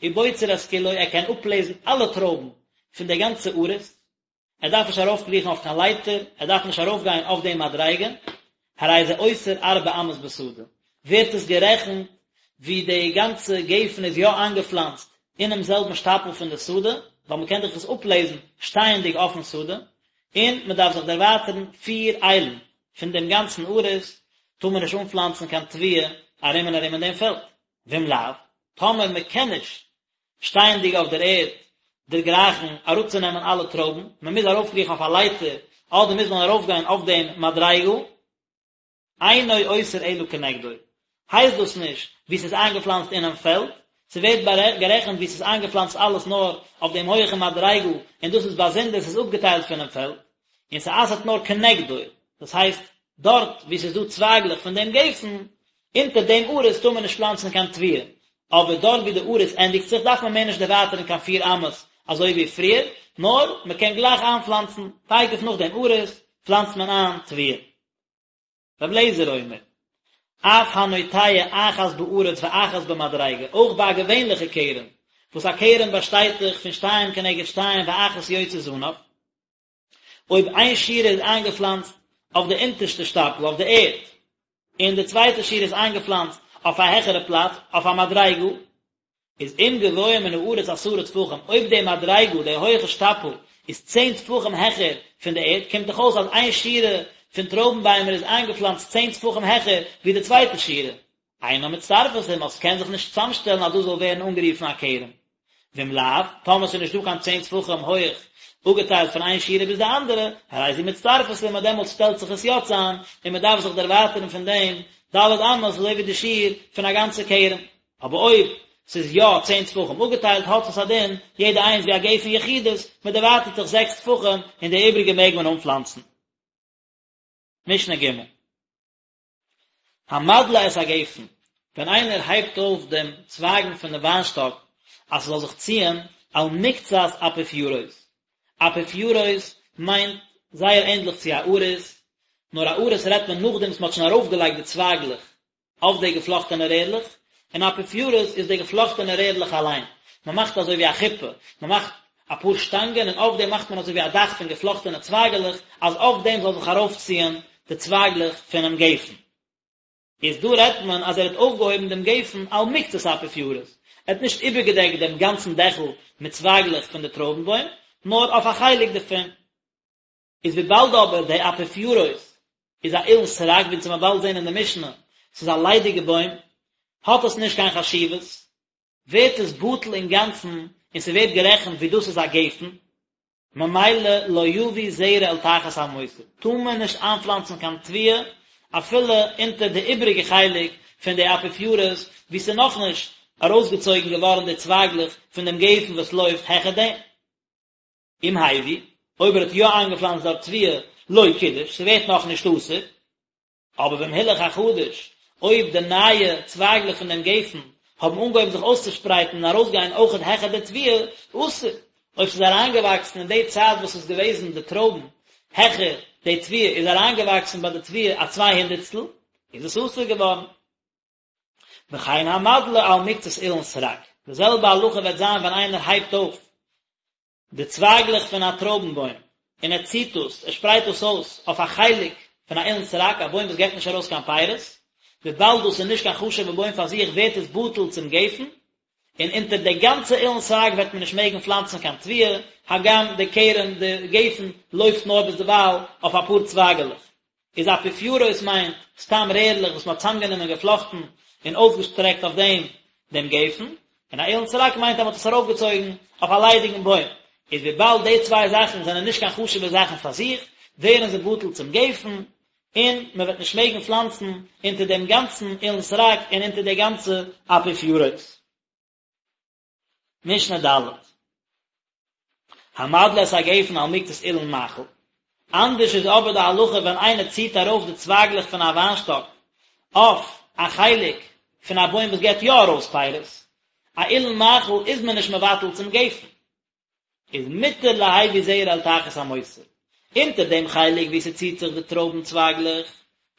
[SPEAKER 1] ובוצר את כולו, ער קען אפלעזן אלע טרויבן פון די גאנצע עריס, ער דארף נישט ארויפקריכן אויף קיין לייטער, ער דארף נישט ארויפגיין אויף די מדריגה, הרי זה אוסר ארבע אמות בשדה, ווערט עס גערעכנט ווי די גאנצע גפן איז יא איינגעפלאנצט אינעם זעלבן שטאפל פון די שדה, ווייל מען קען דאך עס אפלעזן שטייענדיג אויפן שדה, און מען דארף זיך דערווייטערן פיר איילן פון דעם גאנצן עריס, טאר מען נישט אנפלאנצן קיין תבואה ארום און ארום אין דעם פעלד, ואם לאו, טאמער מען קען נישט שטייענדיג אויף דער ערד דערגרייכן אראפצונעמען אלע טרויבן, מען מוז ארויפקריכן אויף א לייטער. אדער מוז מען ארויפגיין אויף דעם מדריגה, אינו אוסר אלא כנגדו, הייסט דאס נישט ווי ס'איז איינגעפלאנצט אינעם פעלד, ס'ווערט גערעכנט ווי ס'איז איינגעפלאנצט אלעס נאר אויף דעם הויעכן מדריגה און דאס איז באזונדער, ס'איז אפגעטיילט פונעם פעלד, און ס'אסר'ט נאר כנגדו, דאס הייסט דארט וואו ס'איז דא צווייגלעך פון דעם גפן, אונטער דעם עריס טאר מען נישט פלאנצן קיין תבואה, אבער דארט וואו די עריס ענדיגט זיך דארף מען מער נישט דערווייטערן קיין פיר אמות אזוי ווי פריער, נאר מ'קען גלייך איינפלאנצן, תיכף נאך דעם עריס פלאנצט מען איין תבואה. רבי אליעזר אומר, אף הנוטע אחת בארץ ואחת במדריגה, אויך ביי א געווענליכע כרם, וואס א כרם באשטייט דאך פון שתיים כנגד שתיים ואחת יוצא זנב, אויב איין שורה איז איינגעפלאנצט אויף די אונטערשטע שטאפל, אויף די ערד, און די צווייטע שורה איז איינגעפלאנצט אויף א העכערע פלאץ, אויף א מדריגה, איז אם גבוה מן הארץ עשרה טפחים, אויב די מדריגה, די הויעכע שטאפל, איז צען טפחים העכער פון די ערד, קומט דאך אויס אז איין שורה פון טרויבן ביימער איז איינגעפלאנצט צען טפחים העכער ווי די צווייטע שורה. אינה מצטרפת עמה, ס'קען זיך נישט צוזאמשטעלן אז דאס זאל ווערן אנגערופן א כרם. ואם לאו, טאמער ס'איז נישט דא קיין צען טפחים הויעך אפגעטיילט פון איין שורה ביז די אנדערע, הרי זו מצטרפת עמה, דעמאלטס שטעלט זיך עס יא צאם, און מ'דארף זיך דערווייטערן פון דעם ד' אמות אזוי ווי די שיעור פון א גאנצע כרם. אבער אויב ס'איז יא צען טפחים אפגעטיילט האט עס א דין יעדע איינס ווי א גפן יחידית, מ'דערווייטערט זיך זעקס טפחים און די איבריגע מעג מען אנפלאנצן. משנה ג'. המדלה את הגפן, ווען איינער הייבט אויף דעם צווייגן פון די וויינשטאק אז ס'זאל זיך ציען על מקצת אפיפירות, אפיפירות מיינט זייער ענדליך צו א עריס, נאר א עריס רעדט מען נאכדעם וואס מ'האט שוין ארויפגעלייגט די צווייגלעך אויף די געפלאכטענע רערלעך, און אפיפירות איז די געפלאכטענע רערלעך אליין, מ'מאכט אזוי ווי א חופה, מ'מאכט אפאר שטאנגען און אויף דעם מאכט מען אזוי ווי א דאך פון געפלאכטענע צווייגעלעך אז אויף דעם זאל זיך ארויפציען די צווייגלעך פונעם גפן. איז דא רעדט מען אז ער האט אויפגעהויבן דעם גפן על מקצת אפיפירות, ער האט נישט איבערגעדעקט דעם גאנצן דעכל מיט צווייגלעך פון די טרויבן בוים, נאר אויף א חלק דערפון. איז וויבאלד אבער די אפיפירות איז א אילן סרק ווי אונז וועלן באלד זען אין די משנה, ס'איז א ליידיגע בוים, האט עס נישט קיין חשיבות, ווערט עס בטל אינגאנצן און ס'ווערט גערעכנט ווי דאס איז א גפן, ממילא לא יביא זרע אל תחת המותר, טאר מען נישט איינפלאנצן קיין תבואה אפילו אונטער די איבריגע חלק פון די אפיפירות וואו ס'איז נאכנישט ארויסגעצויגן געווארן די צווייגלעך פון דעם גפן וואס לויפט העכער דעם. אם הביא, אויב ער האט יא איינגעפלאנצט דארט תבואה, לא קידש, ס'ווערט נאכנישט אסור. אבער ואם הילך החדש, אויב די נייע צווייגלעך פון דעם גפן האבן אנגעהויבן זיך אויסצושפרייטן און ארויסגיין אויכעט העכער די תבואה, אסור. אויב ס'איז אריינגעוואקסן אין די צייט וואס ס'איז געוועזן די טרויבן העכער די תבואה, איז אריינגעוואקסן ביי די תבואה א צוויי הונדערטסטל, איז עס אסור געווארן. וכן המדלה על מקצת אילן סרק, די זעלבע הלכה וועט זיין ווען איינער הייבט אויף די צווייגלעך פון א טרויבן בוים, און ער ציט דאס, ער שפרייט דאס אויס אויף א חלק פון א אילן סרק, א בוים וואס געבט נישט ארויס קיין פירות, וויבאלד דאס איז נישט קיין חשוב'ע בוים פאר זיך ווערט עס בטל צום גפן, און אונטער די גאנצע אילן סרק וועט מען נישט מעגן פלאנצן קיין תבואה, הגם די כרם, די גפן, לויפט נאר ביזדערווייל אויף אפאר צווייגעלעך. איז אפיפירות מיינט סתם רערלעך וואס מ'האט צאמגענומען געפלאכטן און אויסגעשטרעקט אויף דעם דעם גפן, און א אילן סרק מיינט אז מ'האט עס ארויפגעצויגן אויף א ליידיגן בוים, איז וויבאלד די צוויי זאכן זענען נישט קיין חשוב'ע זאכן פאר זיך, ווערן זיי בטל צום גפן, און מ'וועט נישט מעגן פלאנצן אונטער דעם גאנצן אילן סרק און אונטער די גאנצע אפיפירות. משנה ד'. המדלה את הגפן על מקצת אילן מאכל. אנדערש איז אבער די הלכה ווען איינער ציט ארויף די צווייגלעך פון א וויינשטאק אויף א חלק פון א בוים וואס געבט יא ארויס פירות. א אילן מאכל איז מען נישט מבטל צום גפן. איז מותר להביא זרע אל תחת המותר. אונטער דעם חלק וואו ס'ציט זיך די טרויבן צווייגלעך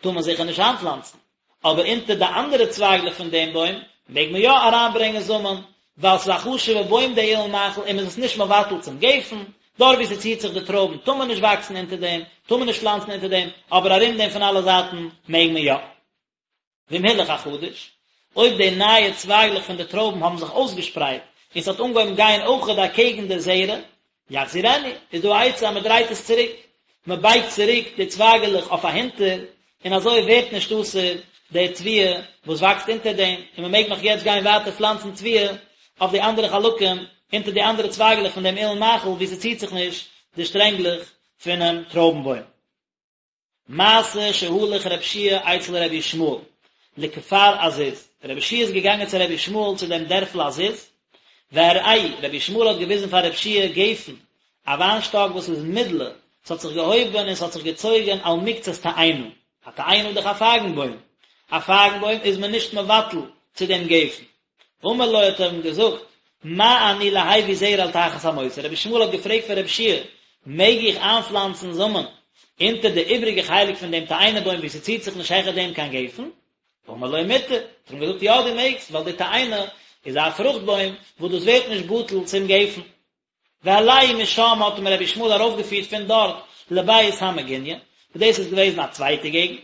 [SPEAKER 1] טאר מען זיכער נישט איינפלאנצן, אבער אונטער די אנדערע צווייגלעך פון דעם בוים מעג מען יא אריינברענגען זאמען, ווייל ס'איז א חשוב'ע בוים די אילן מאכל און מ'איז עס נישט מבטל צום גפן, דארט וואו ס'ציט זיך די טרויבן טאר מען נישט וואקסן אונטער דעם, טאר מען נישט פלאנצן אונטער דעם, אבער ארום דעם פון אלע זייטן מעג מען יא. ואם הילך החדש, אויב די נייע צווייגלעך פון די טרויבן האבן זיך אויסגעשפרייט און ס'האט אנגעהויבן גיין אויכעט אקעגן די זרע, יחזירנו, איז דא א עצה אז מען דרייט עס צוריק, מען בייגט צוריק די צווייגעלעך אויף אהינטער, און אזוי ווערט נישט אסור די תבואה וואס וואקסט אונטער דעם, און מען מעג נאך יעצט גיין ווייטער פלאנצן תבואה אויף די אנדערע חלקים אונטער די אנדערע צווייגעלעך פון דעם אילן מאכל וואו ס'ציט זיך נישט די שטרענגלעך. פונעם טרויבן בוים. מעשה שהלך רב שיע אצל רבי ישמעאל לכפר עזיז, רבי שיע איז געגאנגען צו רבי ישמעאל צו דעם דערפל עזיז, והראהו, רבי ישמעאל האט געוויזן פאר רב שיע גפן, א וויינשטאק וואס איז מדלה, ס'האט זיך געהויבן און ס'האט זיך געצויגן על מקצת תאנה, א תאנה איז דאך א פייגן בוים, א פייגן בוים איז מען נישט מבטל צו דעם גפן. אמר לו האט ער אים געזאגט, מה אני להביא זרע אל תחת המותר, רבי ישמעאל האט געפרעגט פון רבי שיע, מעג איך איינפלאנצן זאמען אונטער די איבריגע חלק פון דעם תאנה בוים וואו ס'ציט זיך נישט העכער דעם קיין גפן? אמר לו מותר, האט ער אים געזאגט יא דו מעגסט, ווייל די תאנה איז א פרוכט בוים וואס דאס ווערט נישט בטל צום גפן. והעלהו משם האט אים רבי ישמעאל ארויפגעפירט פון דארט לבית המגוניא, וואס דאס איז געוועזן א צווייטע געגנט,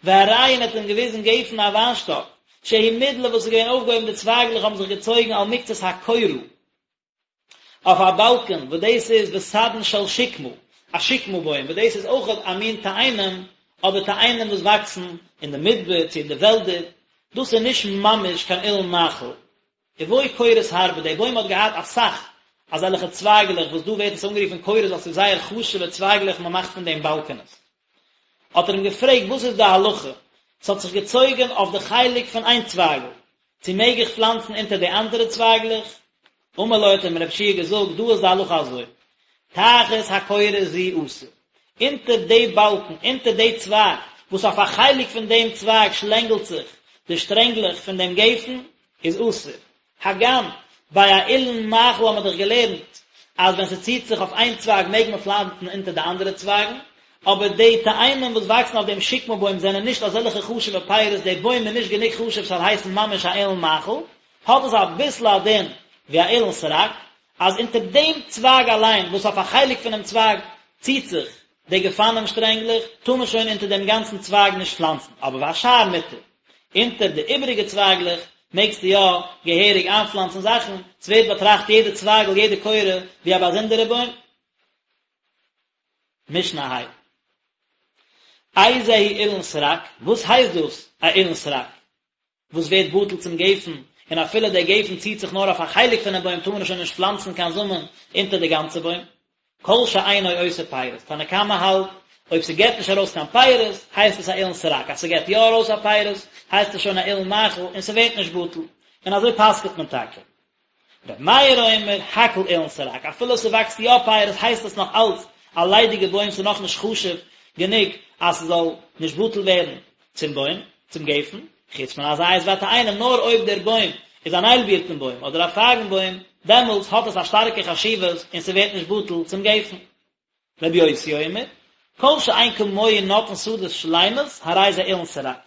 [SPEAKER 1] והראהו און האט אים געוויזן גפן א וויינשטאק, שהיא מדלה וואס איז געווען אויפגעהויבן די צווייגלעך האבן זיך געצויגן על מקצת הקורה, אויף א באלקען, וואס דאס איז וסדין של שקמה, א שקמה בוים, וואס דאס איז אויך א מין תאנים, אבער תאנים וואס וואקסן אין די מדבר צו אין די וועלדער, דאס איז נישט ממש קיין אילן מאכל, ובו קורות הרבה, דער בוים האט געהאט אסאך אזעלכע צווייגלעך וואס דא ווערט עס אנגערופן קורות ווייל ס'איז זייער חשוב'ע צווייגלעך מען מאכט פון דעם באלקענעס. האט ער אים געפרעגט וואס איז די הלכה, ס'האט זיך געצויגן אויף די חלק פון איין צווייגל, צו מעג איך פלאנצן אונטער די אנדערע צווייגלעך? אמר לו האט אים רב שיע געזאגט דא איז די הלכה אזוי, תחת הקורה זו אסור, אונטער די באלקן, אונטער די צווייג, וואס אויף א חלק פון דעם צווייג שלענגלט זיך די שטרענגלעך פון דעם גפן, איז אסור. הגם, ביי א אילן מאכל האט מען דאך געלערנט אז ווען ס'ציט זיך אויף איין צווייג מעג מען פלאנצן אונטער די אנדערע צווייגן, אבער די תאנים וואס וואקסן אויף דעם שקמה בוים זענען נישט אזעלכע חשוב'ע פירות, די בוים איז נישט גענוג חשוב ס'זאל הייסן ממש א אילן מאכל, האט עס אביסל א דין ווי א אילן סרק, אז אונטער דעם צווייג אליין וואס אויף א חלק פונעם צווייג ציט זיך די גפנים שטרענגלעך, טאר מען שוין אונטער דעם גאנצן צווייג נישט פלאנצן, אבער והשאר מותר, אונטער די איבעריגע צווייגלעך מעגסטו יא געהעריג איינפלאנצן זאכן, ס'ווערט באטראכט יעדע צווייגל יעדע קורה ווי א באזונדערע בוים. משנה ה'. איזהו אילן סרק, וואס הייסט דאס א אילן סרק? וואס ווערט בטל צום גפן, און אפילו דער גפן ציט זיך נאר אויף א חלק פונעם בוים טאר מען שוין נישט פלאנצן קיין זאמען אונטער די גאנצע בוים. כל שאינו עושה פירות, תנא קמא האלט, אויב ס'געט נישט ארויס קיין פירות, הייסט עס א אילן סרק, אז ס'געט יא ארויס א פירות, הייסט עס שוין א אילן מאכל און ס'ווערט נישט בטל, און אזוי פסק'ט מען טאקע. ר' מאיר אומר, הכל אילן סרק, אפילו ס'וואקסט יא פירות הייסט עס נאך אלץ א ליידיגע בוים ס'איז נאך נישט חשוב גענוג אז ס'זאל נישט בטל ווערן צום בוים, צום גפן, חוץ מן הזית והתאנים נאר אויב דער בוים איז אן איילבירטן בוים אדער א פייגן בוים דעמאלטס האט עס א שטארקע חשיבות און ס'ווערט נישט בטל צום גפן. רבי יוסי אומר, כל שאין כמוהו נוטעין שדות שלימות, הרי זה אילן סרק.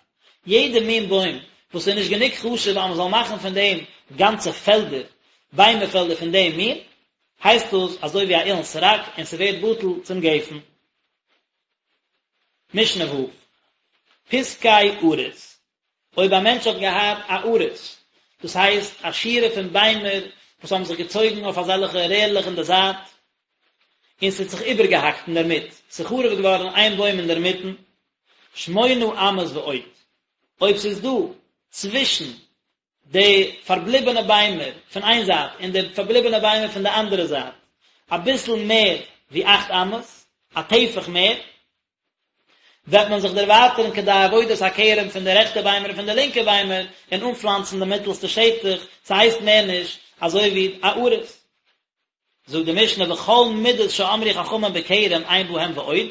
[SPEAKER 1] יעדע מין בוים וואס איז נישט גענוג חשוב אז מען זאל מאכן פון דעם גאנצע פעלדער, ביימער פעלדער פון דעם מין, הייסט דאס אזוי ווי א אילן סרק און ס'ווערט בטל צום גפן. משנה ו', פסקי עריס, אויב א מענטש האט געהאט א עריס, דאס הייסט א שורה פון ביימער וואס האבן זיך געצויגן אויף אזעלכע רערלעך אין די זייט, און ס'האט זיך איבערגעהאקט אינדערמיט, ס'איז חרוב געווארן איין בוים אינדערמיטן, שמונה אמות ועוד, אויב ס'איז דא צווישן די פארבליבענע ביימער פון איין זייט און די פארבליבענע ביימער פון די אנדערע זייט אביסל מער ווי אכט אמות, א טפח מער, וועט מען זיך דערווייטערן כדי עבודת הכרם פון די רעכטע ביימער און פון די לינקע ביימער און אנפלאנצן די מיטלסטע שטח, ס'הייסט מער נישט אזוי ווי א עריס. זאגט די משנה וכל מידות שאמרו חכמים בכרם אין בהם ועוד,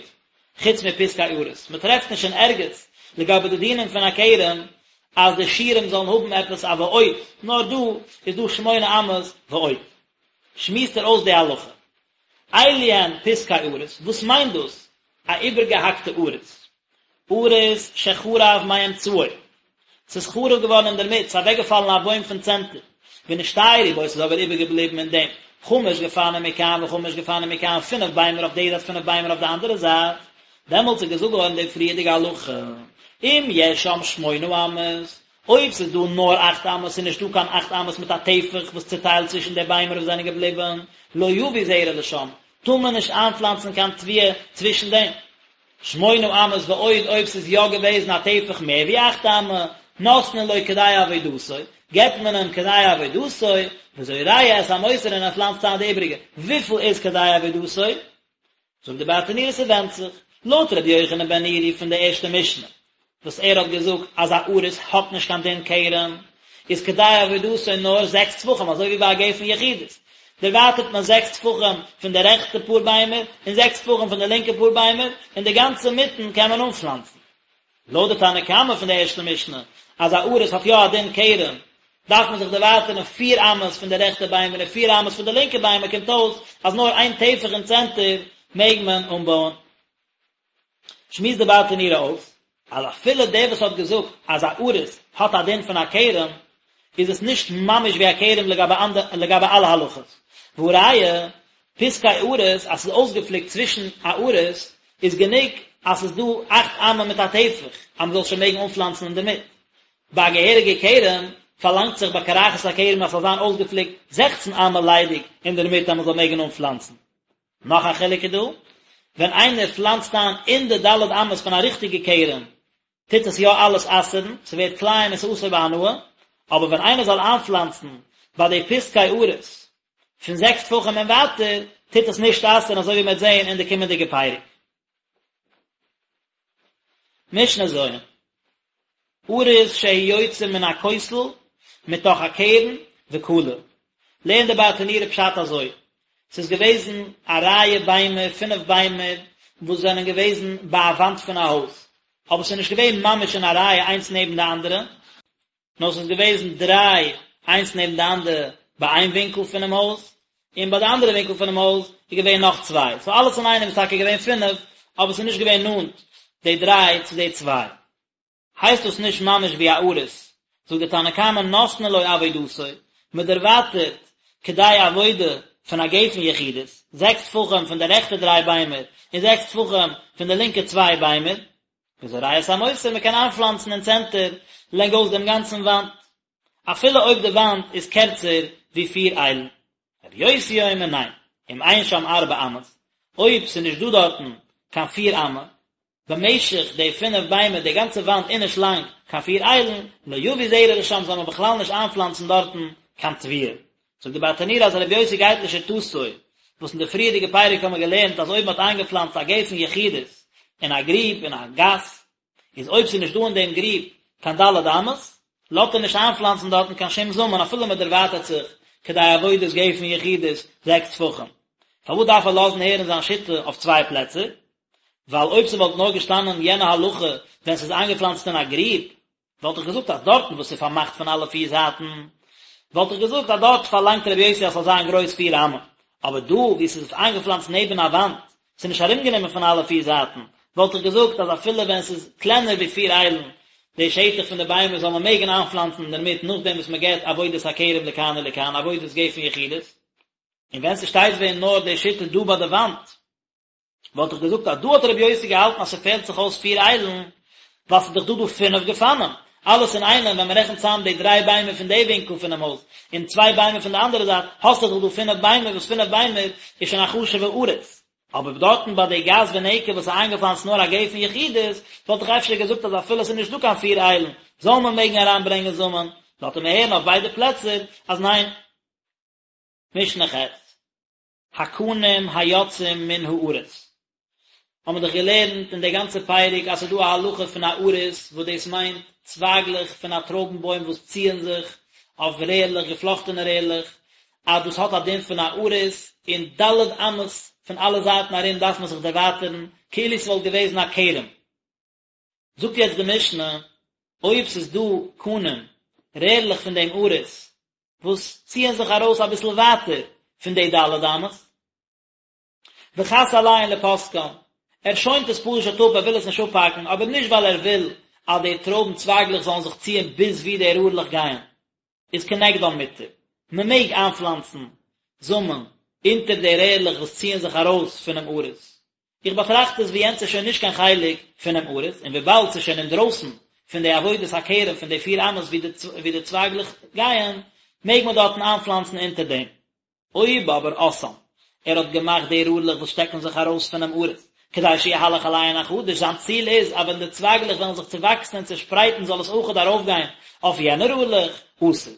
[SPEAKER 1] חוץ מפסקי עריס, מען טרעפט נישט אין ערגעץ לגבי די דינים פון א כרם אז די שיעורים זאלן האבן עפעס א ועוד, נאר דא איז דא שמונה אמות ועוד. שמועסט ער אויס די הלכה. אלו הן פסקי עריס, וואס מיינט דאס א איבערגעהאקטע עריס? עריס שחרב מאמצעו, ס'איז חרוב געווארן אינדערמיט, ס'איז אוועקגעפאלן א בוים פון צענטער, ונשתיירו בו, ס'איז אבער איבערגעבליבן אין דעם, חמש גפנים מכאן וחמש גפנים מכאן, פינף ביימער אויף די זייט פינף ביימער אויף די אנדערע זייט, דעמאלטס איז געזאגט געווארן די פריערדיגע הלכה, אם יש שם שמונה אמות, אויב ס'איז דא נאר אכט אמות ס'איז נישטא קיין אכט אמות מיט א טפח וואס צוטיילט צווישן די ביימער וואס זענען געבליבן, לא יביא זרע לשם, טאר מען נישט איינפלאנצן קיין תבואה צווישן דעם. שמונה אמות ועוד אויב ס'איז יא געוועזן א טפח מער ווי אכט אמה, נותנין לו כדי עבודתו, געבט מען אים כדי עבודתו, וזורע את המותר און ער פלאנצט איין די איבריגע. וויפיל איז כדי עבודתו? זאגט די ברטנורא ס'ווענדט זיך, לויט רבי יוחנן בן נורי פון די ערשטע משנה, וואס ער האט געזאגט אז א עריס האט נישט קיין דין כרם, איז כדי עבודתו נאר זעקס טפחים אזוי ווי ביי א גפן יחידית, דערווייטערט מען זעקס טפחים פון די רעכטע פאר ביימער און זעקס טפחים פון די לינקע פאר ביימער, און די גאנצע מיטן קען מען אנפלאנצן. לויט די תנא קמא פון די ערשטע משנה, אז א עריס האט יא א דין כרם, דארף מען זיך דערווייטערן פיר אמות פון די רעכטע ביימער און פיר אמות פון די לינקע ביימער, קומט אויס אז נאר איין טפח אין צענטער מעג מען אנבויען. שמועסט די ברטנורא אויס, אז אפילו דער וואס האט געזאגט אז א עריס האט א דין פון א כרם, איז עס נישט ממש ווי א כרם לגבי אלע הלכות. והא ראיה, פסקי עריס, אז ס'איז אויסגעפליקט צווישן א עריס, איז גענוג אז ס'איז דא אכט אמה מיט א טפח, אז מ'זאל שוין מעגן אנפלאנצן אינדערמיט. ביי א געהעריגע כרם, פארלאנגט זיך ביי קרחת הכרם אז ס'זאל זיין אויסגעפליקט זעכצן אמה ליידיג אינדערמיט אז מ'זאל מעגן אנפלאנצן. נאך א חילוק איז דא, ווען איינער פלאנצט איין אין די ד' אמות פון א ריכטיגע כרם, טוט עס יא אלעס אסר'ן, ס'ווערט כלאים און ס'אסור בהנאה, אבער ווען איינער זאל איינפלאנצן ביי די פסקי עריס פון זעקס טפחים און ווייטער, טוט עס נישט אסר'ן אזוי ווי מ'וועט זען אין די קומענדיגע פרק. משנה ז'. עריס שהוא יוצא מן הכותל מתוך הקרן וכלה. לערנט די ברטנורא פשט אזוי, ס'איז געוועזן א רייע ביימער, פינף ביימער, וואס זענען געוועזן ביי א וואנט פון א הויז, אבער ס'איז נישט געווען ממש אין א רייע איינס נעבן די אנדערע, נאר ס'איז געוועזן דריי איינס נעבן די אנדערע ביי איין ווינקל פונעם הויז, און ביי די אנדערע ווינקל פונעם הויז איז געווען נאך צוויי, סאו אלעס אינאיינעם איז טאקע געווען פינף, אבער ס'איז נישט געווען נאנט די דריי צו די צוויי. הייסט דאס נישט ממש ווי א עריס, זאגט די תנא קמא נותנין לו עבודתו, מען דערווייטערט כדי עבודה פון א גפן יחידית, זעקס טפחים פון די רעכטע דריי ביימער און זעקס טפחים פון די לינקע צוויי ביימער, וזורע את המותר, מען קען איינפלאנצן אין צענטער לענגאויס דעם גאנצן וואנט, אפילו אויב די וואנט איז קערצער ווי פיר איילן. רבי יוסי אומר ניין, אם אין שם ארבע אמות, אויב ס'איז נישט דא דארטן קיין פיר אמה, במשך די פינף ביימער די גאנצע וואנט איז נישט לאנג קיין פיר איילן, לא יביא זרע לשם זאל מען בכלל נישט איינפלאנצן דארטן קיין תבואה. זאגט די ברטנורא אז רבי יוסי גייט לשיטתו, וואס אין די פריערדיגע פרק האבן מיר געלערנט אז אויב מען האט איינגעפלאנצט א גפן יחידית אין א גריב אין א גאס, איז אויב ס'איז נישט דא אין דעם גריב קיין ד' אמות, לאזט ער נישט איינפלאנצן דארטן קיין שום זאמען אפילו מען דערווייטערט זיך כדי עבודת גפן יחידית זעקס טפחים. פארוואס דארף ער לאזן הערן זיין שיטה אויף צוויי פלעצער? ווייל אויב ס'וואלט נאר געשטאנען יענע הלכה ווען ס'איז איינגעפלאנצט אין א גריב, וואלט איך געזאגט אז דארטן וואס ס'איז פארמאכט פון אלע פיר זייטן, וואלט איך געזאגט אז דארט פארלאנגט רבי יוסי אז ס'זאל זיין גרויס פיר אמה, אבער דא וואו ס'איז איינגעפלאנצט נעבן א וואנט, ס'איז נישט ארומגענומען פון אלע פיר זייטן, וואלט איך געזאגט אז אפילו ווען ס'איז קלענער ווי פיר איילן די שטח פון די ביימער זאל מען מעגן איינפלאנצן אינדערמיט נאכדעם וואס מ'געט עבודת הכרם לכאן ולכאן, עבודת גפן יחידית. און ווען ס'שטייט ווען נאר די שיטה דא ביי די וואנט, וואלט איך געזאגט אז דא האט רבי יוסי געהאלטן אז ס'פעלט זיך אויס פיר איילן, ווייל ס'איז דאך דא דא פינף גפנים, אלעס אינאיינעם ווען מ'רעכנט צאם די דריי ביימער פון די ווינקל פונעם הויז, און צוויי ביימער פון די אנדערע זייט, האסטו דאך דא פינף ביימער וואס פינף ביימער איז שוין א חשוב'ע עריס. אבער דארטן ביי די גת ונקב וואס איז איינגעפלאנצט נאר א גפן יחידית, וואלט איך אפשר געזאגט אז אפילו ס'איז נישט דא קיין פיר איילן, זאל מען מעגן אריינברענגען זאמען, לאזט ער מיר הערן אויף ביידע פלעצער אז ניין. משנה ח'. הקנים היוצאים מן העריס. האבן מיר דאך געלערנט אין די גאנצע פרק אז ס'איז דא א הלכה פון א עריס וואס דאס מיינט צווייגלעך פון א טרויבן בוים וואס ציען זיך אויף רערלעך, געפלאכטענע רערלעך, אז דאס האט א דין פון א עריס, און ד' אמות פון אלע זייטן ארום דארף מען זיך דערווייטערן, כאילו ס'וואלט געוועזן א כרם. זאגט יעצט די משנה, אויב ס'איז דא קנים, רערלעך פון דעם עריס, וואס ציען זיך ארויס אביסל ווייטער פון די ד' אמות, וחס עליהן לפוסקן, ער שוינט עס פשוט אפ, ער וויל עס נישט אפהאקן, אבער נישט ווייל ער וויל אז די טרויבן צווייגלעך זאלן זיך ציען ביז וואו די רערלעך גייען, איז כנגדן מותר, מען מעג איינפלאנצן זאמען אונטער די רערלעך וואס ציען זיך ארויס פונעם עריס, איך באטראכט עס ווי יענץ איז שוין נישט קיין חלק פונעם עריס, און וויבאלד ס'איז שוין אינדרויסן פון די עבודת הכרם פון די פיר אמות ווי די צווייגלעך גייען, מעג מען דארטן איינפלאנצן אונטער דעם. אויב אבער עשאן, ער האט געמאכט די רארלעך וואס שטעקן זיך ארויס פונעם עריס, כדי שיהלך עליהן החדש, זיין ציל איז אז ווען די צווייגלעך וועלן זיך צעוואקסן און צעשפרייטן זאל עס אויכעט ארויפגיין אויף יענע רארלעך, אסור.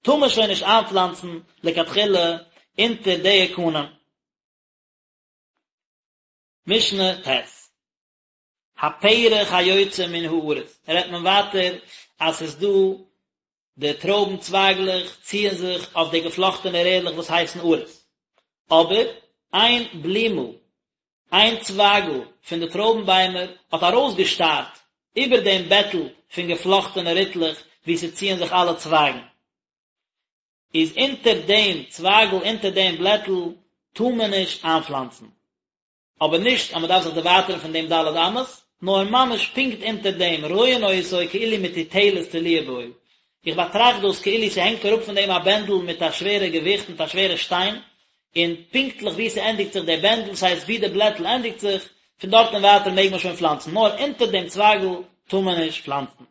[SPEAKER 1] טאר מען שוין נישט איינפלאנצן לכתחילה אונטער די קנים. משנה ט'. הפרח היוצא מן העריס, רעדט מען ווייטער אז ס'איז דא די טרויבן צווייגלעך ציען זיך אויף די געפלאכטענע רערלעך וואס הייסן עריס, אבער איין בלימל, איין צווייגל פון די טרויבן ביימער האט ארויסגעשטארט איבער דעם בעטל פון געפלאכטענע ריטלעך וואו ס'ציען זיך אלע צווייגן. איז אונטער דעם צווייגל אונטער דעם בלעטל טאר מען נישט איינפלאנצן. אבער נישט אז מען דארף זיך דערווייטערן פון דעם ד' אמות, נאר ממש פונקט אונטער דעם, רואין אותו כאילו מטוטלת תלויה בו, איך באטראכט דאס כאילו ס'הענגט אראפ פון דעם א בענדל מיט א שווערע געוויכט, מיט א שווערע שטיין, און פונקטליך וואו ס'ענדיגט זיך דער בענדל, ס'הייסט וואו די בלעטל ענדיגט זיך, פון דארט און ווייטער מעג מען שוין פלאנצן, נאר אונטער דעם צווייגל טאר מען נישט פלאנצן.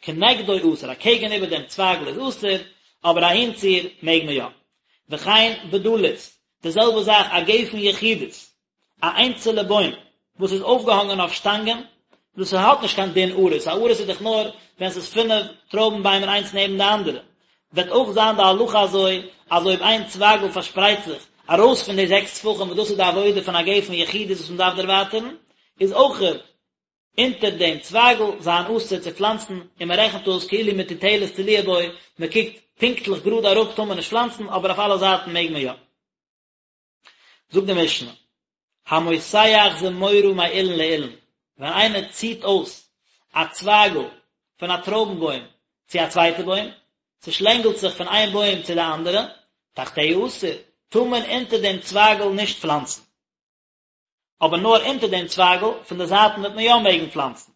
[SPEAKER 1] כנגדו אסור, אקעגן איבער דעם צווייגל איז אסור, אבער אהינציר מעג מען יא. וכן בדלית, די זעלבע זאך א גפן יחידית, א איינצעלע בוים וואס איז אויפגעהאנגען אויף שטאנגען, דאס האט נישט קיין דין עריס, א עריס איז דאך נאר ווען ס'איז פינף טרויבן ביימער איינס נעבן די אנדערע, וועט אויך זיין די הלכה אזוי אז אויב איין צווייגל פארשפרייט זיך ארויס פון די זעקס טפחים וואס דאס איז די עבודה פון א גפן יחידית וואס מ'דארף דערווייטערן, איז אויך אונטער דעם צווייגל זיין אסור צו פלאנצן, און מען רעכנט אויס כאילו מטוטלת תלויה בו, מען קוקט פונקטליך גראד אראפ טאר מען נישט פלאנצן, אבער אויף אלע זייטן מעג מען יא. זאגט די משנה, המותח זמורה מאילן לאילן, ווען איינער ציט אויס א צווייגל פון א טרויבן בוים צו א צווייטע בוים, ס'שלענגלט זיך פון איין בוים צו די אנדערע, תחתיה אסור, טאר מען אונטער דעם צווייגל נישט פלאנצן. אבער נאר אונטער דעם צווייגל, פון די זייטן וועט מען יא מעגן פלאנצן.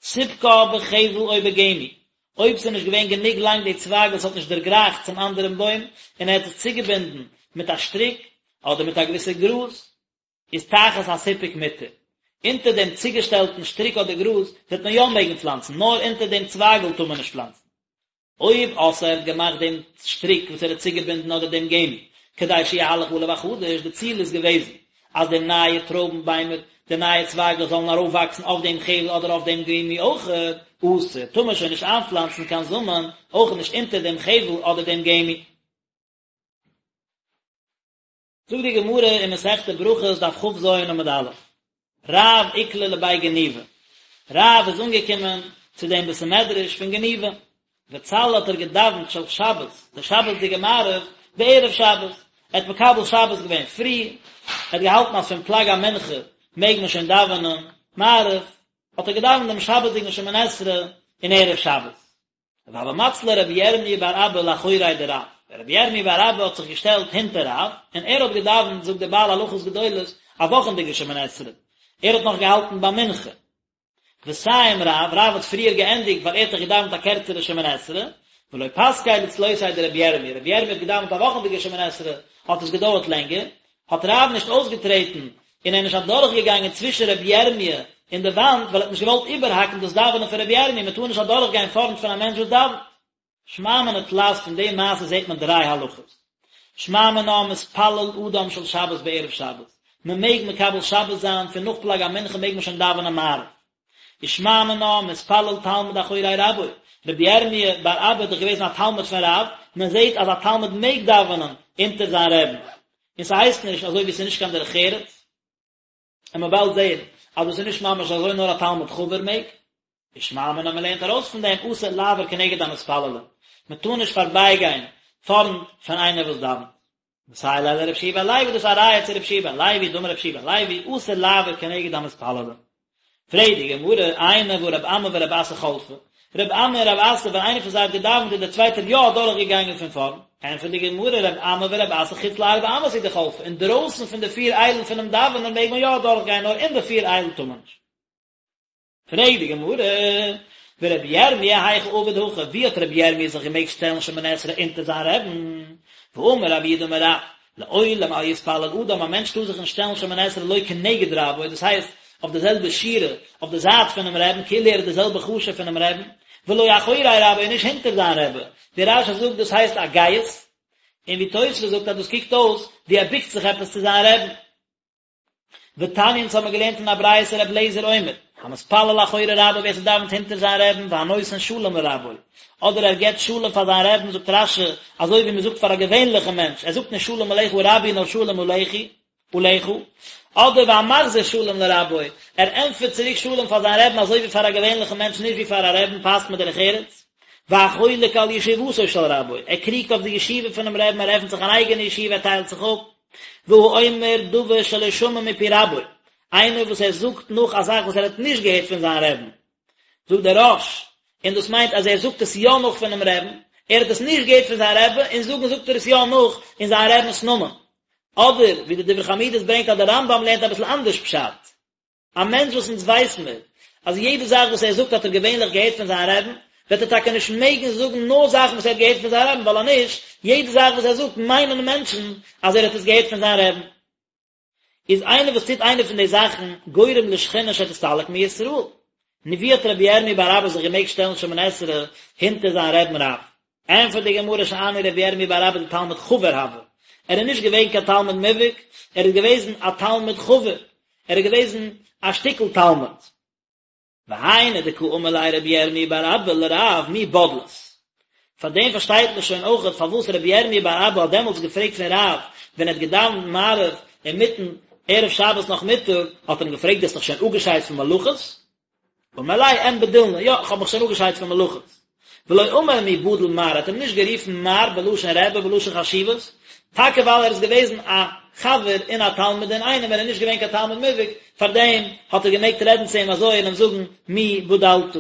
[SPEAKER 1] סיפקה בחבל או בגמי, אויב ס'איז נישט געווען גענוג לאנג די צווייגל ס'האט נישט דערגרייכט צום אנדערן בוים, און ער האט עס צוגעבינדן מיט א שטריק, אדער מיט א געוויסע גראז, איז תחת הסיפוק מותר. אונטער דעם צוגעשטעלטן שטריק אדער גראז וועט מען יא מעגן פלאנצן, נאר אונטער דעם צווייגל טאר מען נישט פלאנצן. אויב עשאה ער האט געמאכט דעם שטריק וואס ער האט צוגעבינדן אדער דעם גמי, כדי שיהלך עליו החדש, די ציל איז געוועזן אז די נייע טרויבן ביימער, די נייע צווייגלעך זאלן ארויפוואקסן אויף דעם חבל אדער אויף דעם גמי אויכעט, אסור, טאר מען שוין נישט איינפלאנצן קיין זאמען, אויך נישט אונטער דעם חבל אדער דעם גמי. זאגט די גמרא אין מסכת ברכות דף כ"ז עמוד א', רב איקלע לבי גניבה, רב איז אנגעקומען צו דעם בית המדרש פון גניבה, וצלי האט ער געדאווענט של שבת, די שבת'דיגע מעריב, בערב שבת, ער האט מקבל שבת געווען פרי, ער האט געהאלטן אז פון פלג המנחה מעג מען שוין דאווענען מעריב, האט ער געדאווענט דעם שבת'דיגן שמונה עשרה אין ערב שבת. והוה מצלי רבי ירמי' בר אבא לאחוריה דרב, רבי ירמי' בר אבא האט זיך געשטעלט הינטער רב, און ער האט געדאווענט, זאגט דער בעל הלכות גדולות, א וואכענדיגע שמונה עשרה, ער האט נאך געהאלטן ביי מנחה. וסיים רב, רב האט פריער געענדיגט ווייל ער האט דאך געדאווענט א קערצערע שמונה עשרה, ולא פסקיה לצלותיה דרבי ירמי', רבי ירמי' האט געדאווענט א וואכענדיגע שמונה עשרה, האט עס געדויערט לענגער, האט רב נישט אויסגעטרעטן און ער איז נישט אדורכגעגאנגען צווישן רבי ירמי' און די וואנט, ווייל ער האט נישט געוואלט איבערהאקן דאס דאווענען פון רבי ירמי', מען טאר נישט אדורכגיין פארנט פון א מענטש וואס דאווענט. שמע מינה תלת פון די מעשה זעט מען דריי הלכות. שמע מינה מתפלל אדם של שבת בערב שבת, מען מעג מקבל שבת זיין פון נאך פלג המנחה מעג מען שוין דאווענען מעריב. ושמע מינה מתפלל תלמיד אחורי רבו, רבי ירמי' בר אבא איז דאך געוועזן א תלמיד פון רב, מען זעט אז א תלמיד מעג דאווענען אונטער זיין רעבן, און ס'הייסט נישט אזוי ווי ס'איז נישט קיין דרך ארץ, און מ'וועט באלד זען אז דאס איז נישט ממש אזוי נאר א תלמיד חבר מעג, ושמע מינה מען לערנט ארויס פון דעם אסור לעבור כנגד המתפללים, מען טאר נישט פארבייגיין פארנט פון איינער וואס דאווענט. מסייע ליה לרבי יהושע בן לוי דאס איז א ראיה צו רבי יהושע בן לוי דאמר רבי יהושע בן לוי אסור לעבור כנגד המתפללים. פרעגט די גמרא, איני והא רב אמי ורב אסי חלפי, רב אמי און רב אסי ווען איינער פון זיי האט געדאווענט איז דער צווייטער יא אדורך געגאנגען פון פארנט, ענטפערט די גמרא, רב אמי ורב אסי חוץ לארבע אמות הוא דחלפי, אינדרויסן פון די פיר איילן פונעם דאווענען מעג מען יא אדורך גיין נאר אין די פיר איילן טאר מען נישט. פרעגט די גמרא, ורבי ירמי' היכי עביד הכי, ווי האט רבי ירמי' זיך געמעגט שטעלן שמונה עשרה אונטער זיין רעבן? והאמר רב יהודה אמר רב, לעולם אל יתפלל אדם, א מענטש טאר זיך נישט שטעלן שמונה עשרה לא כנגד רבו, דאס הייסט, אויף די זעלבע שורה, אויף די זייט פונעם רעבן, כאילו ער איז די זעלבע חשוב פונעם רעבן, ולא אחורי רבו, און נישט הונטער זיין רעבע, ווי רש"י זאגט דאס הייסט א גאות, און ווי תוספות זאגט אז דאס קוקט אויס ווי ער בוקט זיך עפעס צו זיין רעבן. ותניא אונז האבן געלערנט אין א ברייתא רבי אליעזר אומר, המתפלל אחורי רבו ווער ס'דאווענט הונטער זיין רעבן והנותן שלום לרבו, אדער ער געבט שלום פאר זיין רעבן זאגט רש"י אזוי ווי מ'זאגט פאר א געווענליכע מענטש, ער זאגט נישט שלום עליך רבי נאר שלום עליכי, עליך, אדער והמחזיר שלום לרבו, ער ענטפערט צוריק שלום פאר זיין רעבן אזוי ווי פאר א געווענליכן מענטש נישט ווי פאר א רעבן פאסט מיט דרך ארץ. והחולק על ישיבתו של רבו, ער קריגט אויף די ישיבה פונעם רעבן ער עפנט זיך אן אייגענע ישיבה ער טיילט זיך אפ. והאומר דבר שלא שמע מפי רבו, איינער וואס ער זאגט נאך א זאך וואס ער האט נישט געהערט פון זיין רעבן. זאגט דער רא"ש, און דאס מיינט אז ער זאגט עס יא נאך פונעם רעבן, ער האט עס נישט געהערט פון זיין רעבע, און זאגן זאגט ער עס יא נאך אין זיין רעבנ'ס נאמען. אדער ווי די דברי חמודות ברענגט אז דער רמב"ם לערנט אביסל אנדערש פשט. א מענטש וואס אונז ווייס מיר אז יעדע זאך וואס ער זאגט האט ער געווענליך געהערט פון זיין רעבן, וועט ער טאקע נישט מעגן זאגן נאר זאכן וואס ער האט געהערט פון זיין רעבן, ווייל אז נישט, יעדע זאך וואס ער זאגט מיינען מענטשן אז ער האט עס געהערט פון זיין רעבן. איז איינער וואס טוט איינע פון די זאכן גורם לשכינה שתסתלק מישראל. נו ווי האט רבי ירמי' בר אבא זיך געמעגט שטעלן שמונה עשרה הינטער זיין רעבן רב? ענפערט די גמרא שאני רבי ירמי' בר אבא דתלמיד חבר הוה, ער איז נישט געווען קיין תלמיד מובהק, ער איז געוועזן א תלמיד חבר, ער איז געוועזן א שטיקל תלמיד. והיינו דקא אמר ליה רבי ירמי' בר אבא לרב מי בדלת. פאר דעם פארשטייט מען שוין אויכעט פארוואס רבי ירמי' בר אבא האט דעמאלטס געפרעגט פון רב ווען ער האט געדאווענט מעריב אינמיטן ערב שבת נאכמיטאג האט ער אים געפרעגט דו האסט דיך שוין אפגעשיידט פון מלאכות? אמר ליה אין בדילנא, יא איך האב מיך שוין אפגעשיידט פון מלאכות. ולא אמר מי בדיל מר, ער האט אים נישט גערופן מר בלשון רבי בלשון חשיבות, טאקע ווייל ער איז געוועזן א חבר און א תלמיד אינאיינעם, ער איז נישט געווען קיין תלמיד מובהק, פארדעם האט ער געמעגט רעדן צו אים אזוי און אים זאגן מי בדלת.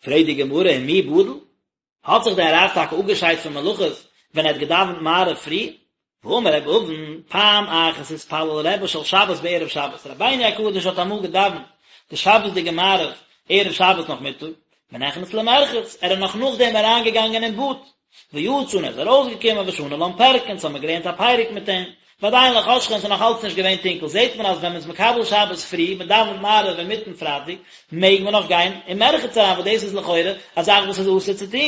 [SPEAKER 1] פרעגט די גמרא ומי בדיל? האט זיך דער רב טאקע אפגעשיידט פון מלאכות ווען ער האט געדאווענט מעריב פרי? והאמר רבי אבין, פעם אחת התפלל רבי של שבת בערב שבת, רבינו הקדוש האט אמאל געדאווענט די שבת'דיגע מעריב ערב שבת נאכמיטאג, ונכנס למרחץ, ער איז נאך נאכדעם אריינגעגאנגען אין באד, ויצא און ער איז ארויסגעקומען ושני לן פרקא, אונז האבן מיר געלערנט א פרק מיט אים, ועדיין לא חשכה און ס'איז נאך אלץ נישט געווען טונקל, זעט מען אז ווען מ'איז מקבל שבת פרי, מ'דאווענט מעריב אינמיטן פרייטאג, מעג מען נאך גיין אין מרחץ אריין, וואס דאס איז לכאורה א זאך וואס איז אסור צו טון.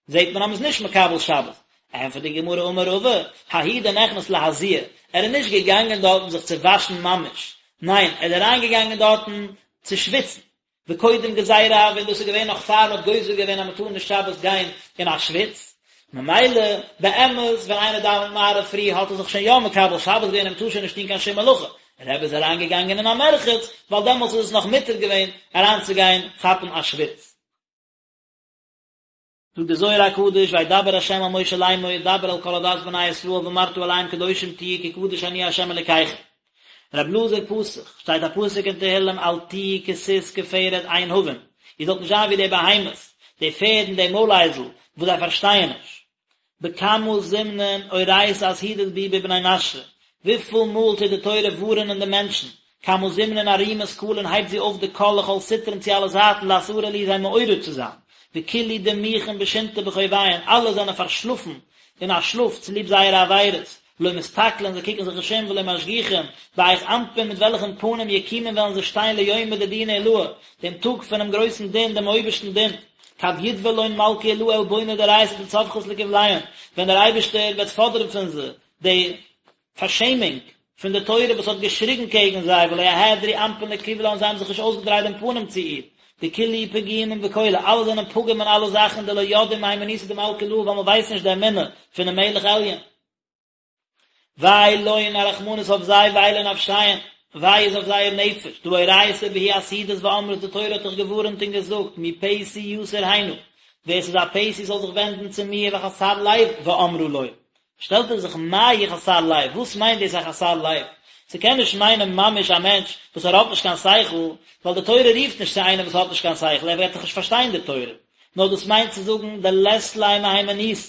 [SPEAKER 1] זעט מען אז מ'איז נישט מקבל שבת. ענטפערט די גמרא אמר רבא, ההוא דנכנס להזיע, ער איז נישט געגאנגען דארטן זיך צו וואשן ממש, ניין, ער איז אריינגעגאנגען דארטן צו שוויצן, וקודם גזירה הוה, און דאס איז געווען נאך פאר מ'האט גוזר געווען אז מ'טאר נישט שבת גיין אין א שוויץ, ממילא באמת ווען איינער דאווענט מעריב פרי האט ער זיך שוין יא מקבל שבת געווען און מ'טאר שוין נישט טון קיין שום מלאכה, רבי איז אריינגעגאנגען אין א מרחץ ווייל דעמאלטס איז עס נאך מותר געווען אריינצוגיין כאפן א שוויץ. זאגט דער זוהר הקדוש וידבר ה' אל משה לאמור דבר אל כל עדת בני ישראל ואמרת אליהם קדושים תהיו כי קדוש אני ה' אלקיכם. רב אלעזר פתח, שטייט א פסוק אין תהילים אל תהיו כסוס כפרד אין הבין, איר זאלט נישט זיין ווי די בהמות, די פערד און די מוילאייזל, וואס זיי פארשטייען נישט. בכמה זמנין אורייתא אזהירא בהו בבני נשא, וויפיל מאל טוט די תורה ווארענען די מענטשן, כמה זמנין ארימא קלין הייבט זי אויף די קול לכל סטרין צו אלע זייטן לאתערא להו זיי מעורר צו זיין, וכלהו דמיכין בשינתא בחוביהון אלע זענען פארשלאפן אין א שלאף צוליב זייערע עבירות, לא מסתכלין זיי קוקן זיך נישט אום ולא משגיחין, בהיך אנפין מיט וועלכן פנים יקומון וועלן זיי שטיין ליומא דדינא עילאה, דעם טאג פונעם גרויסן דין, דעם אויבערשטן דין. כד יתבע לון מלכא עילאה עלבונא דאורייתא דצווחת לקבליהון, ווען דער אייבערשטער וועט פאדערן פון זיי די פארשעמונג פון די תורה וואס האט געשריגן קעגן זיי ולא אהדרו אנפין לקבלה און זיי האבן זיך נישט אויסגעדרייט דעם פנים צו איר, דכלהו פגימין בכלא, אלע זענען פגום אין אלע זאכן דלא ידעי מהימנותא דמלכא עילאה ווייל מען ווייסט נישט די אמונה פונעם מלך עליון. וויי לון, א רחמנות אויף זיי, וויי לנפשיהון, וויי איז אויף זייער נפש, דהא אורייתא בהו אסהידת ואמרת, די תורה האט דאך געווארענט און געזאגט, מי פתי יסור הנה, ווער ס'איז א פתי זאל זיך ווענדן צו מיר, וחסר לב ואמרה לו. שטעלט ער זיך מאי חסר לב, וואס מיינט דאס א חסר לב? ס'קען נישט מיינען ממש א מענטש וואס ער האט נישט קיין שכל, ווייל די תורה רופט נישט צו איינעם וואס האט נישט קיין שכל, ער וועט דאך נישט פארשטיין די תורה, נאר דאס מיינט צו זאגן דלית ליה מהימנותא,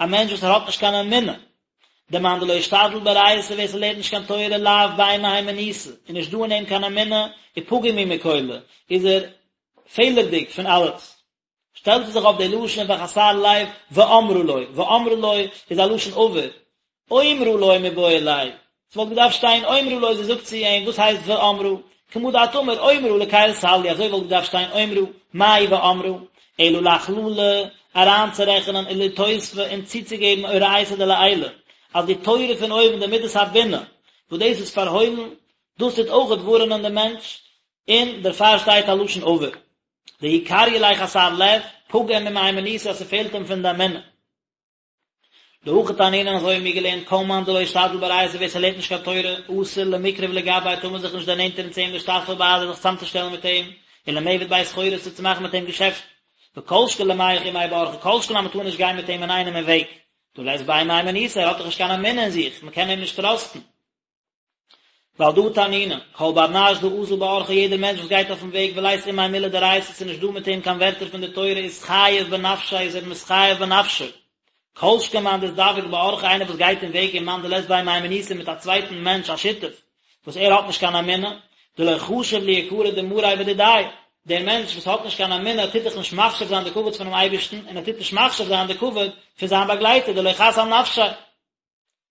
[SPEAKER 1] א מענטש וואס ער האט נישט קיין אמונה, דמאן דלא אשתדיל באורייתא ווער ס'לערנט נישט קיין תורה לאו ביה מהימנותא, איז נישט דא אין אים קיין אמונה, ופגים הוא מכלא, איז ער פעלערדיג פון אלעס. שטעלט ער זיך אויף די לשון וחסר לב ואמרה לו, ואמרה לו איז א לשון עבר, אומרה לו מיבעי ליה, ס'וואלט געדארפט שטיין אומרה לו זי זאגט צו אים, וואס הייסט ואמרה? כמה דאת אמר אומרה לקל סלעי, אזוי וואלט געדארפט שטיין אומרה, מאי ואמרה? אלא לאכללא, אריינצורעכענען ולאתוספא און צוצוגעבן אורייתא דלעילא, אז די תורה פון אויבן די מידת הבינה, וואס דאס איז פארהוילן, דאס טוט אויכעט ווארענען דעם מענטש, און דערפאר שטייט א לשון עבר. דהוא קריא ליה חסר לב, פגים ממהימנותא אז ס'פעלט אים פון די אמונה. דהכי תנינן אזוי האבן מיר געלערנט כל מאן דלא אשתדיל באורייתא ווער ס'לערנט נישט קיין תורה אסור למקרב לגביה טאר מען זיך נישט דערנענטערן צו אים לאשתתפא בהדיה זיך צאמצושטעלן מיט אים ולמעבד ביה סחורתא צו מאכן מיט אים געשעפטן וכל שכן למיהך עמיה באורחא כל שכן אז מ'טאר נישט גיין מיט אים אינאיינעם אין וועג דהא לית ביה מהימנותא ער האט דאך נישט קיין אמונה אין זיך מ'קען אים נישט טראסטן. ועל דא תנינן, כל בר נש דאזיל באורחא יעדער מענטש וואס גייט אויפן וועג ולית עמיה מילי דאורייתא ס'איז נישט דא מיט אים קיין ווערטער פון די תורה אתחייב בנפשיה איז ער מתחייב בנפשו. כל שכן מאן דאזדווג באורחא איינער וואס גייט אין וועג עם מאן דלית ביה מהימנותא מיט א צווייטן מענטש א שותף וואס ער האט נישט קיין אמונה, דלא חשיב ליקרא דמריה ודידיה, דער מענטש וואס האט נישט קיין אמונה טוט דאך נישט מחשיב זיין די כבוד פונעם אייבערשטן און ער טוט נישט מחשיב זיין די כבוד פון זיין באגלייטער דלא חס על נפשיה.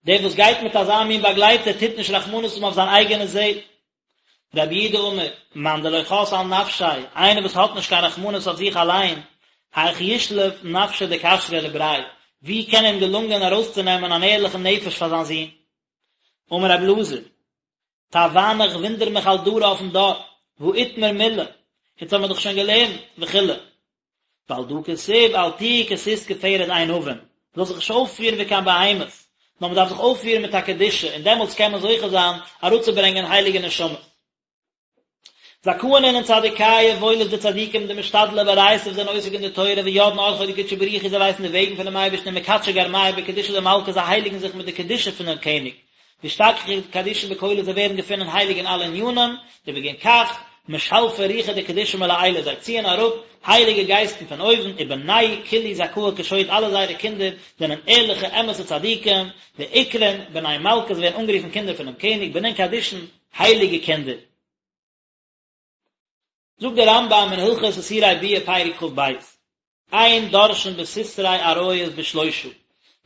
[SPEAKER 1] דער וואס גייט מיט אזא מין באגלייטער טוט נישט רחמנות האבן אויף זיין אייגענע זעל. רבי יהודה אמר, מאן דלא חס על נפשיה, איינער וואס האט נישט קיין רחמנות אויף זיך אליין, היך ישלוף נפשא דכשרא לבריה, ווי קען אים געלונגען ארויסצונעמען אן ערליכן נפש פאר זיין זון? אמר רבי אלעזר, תווהנא איך וואונדער מיך על דרא אויפן דור, והא איתמר מילי, יעצט האבן מיר דאך שוין געלערנט, וכו'. ועל דא כתיב אל תהיו כסוס כפרד אין הבין, מ'זאל זיך נישט אויפפירן ווי קיין בהמות, נאר מ'דארף זיך אויפפירן מיט א קדושה, און דעמאלטס קען מען זוכה זיין אראפצוברענגען הייליגע נשמות. זכאין אינון צדיקיא, וואויל איז די צדיקים דמשתדלי באורייתא וואס זענען עוסק אין די תורה וידעין ארחוי דקודשא בריך הוא זיי ווייסן די וועגן פונעם אייבערשטן ומקדשי גרמייהו בקדושה דמלכא זיי הייליגן זיך מיט די קדושה פונעם קעניג ואשתכחו קדישין בכלא זיי ווערן געפונען הייליג אין אלע ענינים, ובגין כך משלפי רוחא דקדושה מלעילא זיי ציען אראפ הייליגע גייסטן פון אויבן, ובנייהו כולהו זכאי כשוט אלע זייערע קינדער זענען ערליכע אמת'ע צדיקים, ואקרון בני מלכא זיי ווערן אנגערופן קינדער פונעם קעניג, בנין קדישין, הייליגע קינדער. זאגט דער רמב"ם אין הלכות איסורי ביאה פרק כ"ב, אין דורשין בסתרי עריות בשלושה,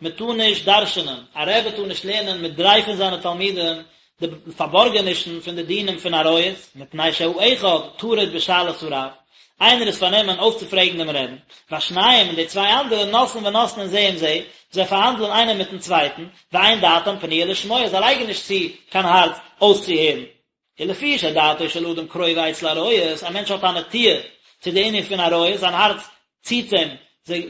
[SPEAKER 1] מען טאר נישט דרש'נען, א רבי טאר נישט לערנען מיט דריי פון זיינע תלמידים די פארבארגענישן פון די דינים פון עריות, מפני שהאחד טרוד בשאלת הרב, איינער איז פארנומען אויסצופרעגן דעם רעבן, והשניים און די צוויי אנדערע נושאין ונותנין זה עם זה, זיי פארהאנדלען איינער מיטן צווייטן, ואין דעתם פנויה לשמוע, זיי לייגן נישט צו קיין הארץ אויסצוהערן. ולפי שדעתו של אדם קרובה אצל עריות, א מענטש האט א נטיה צו די ענין פון עריות, זיין הארץ ציט אים,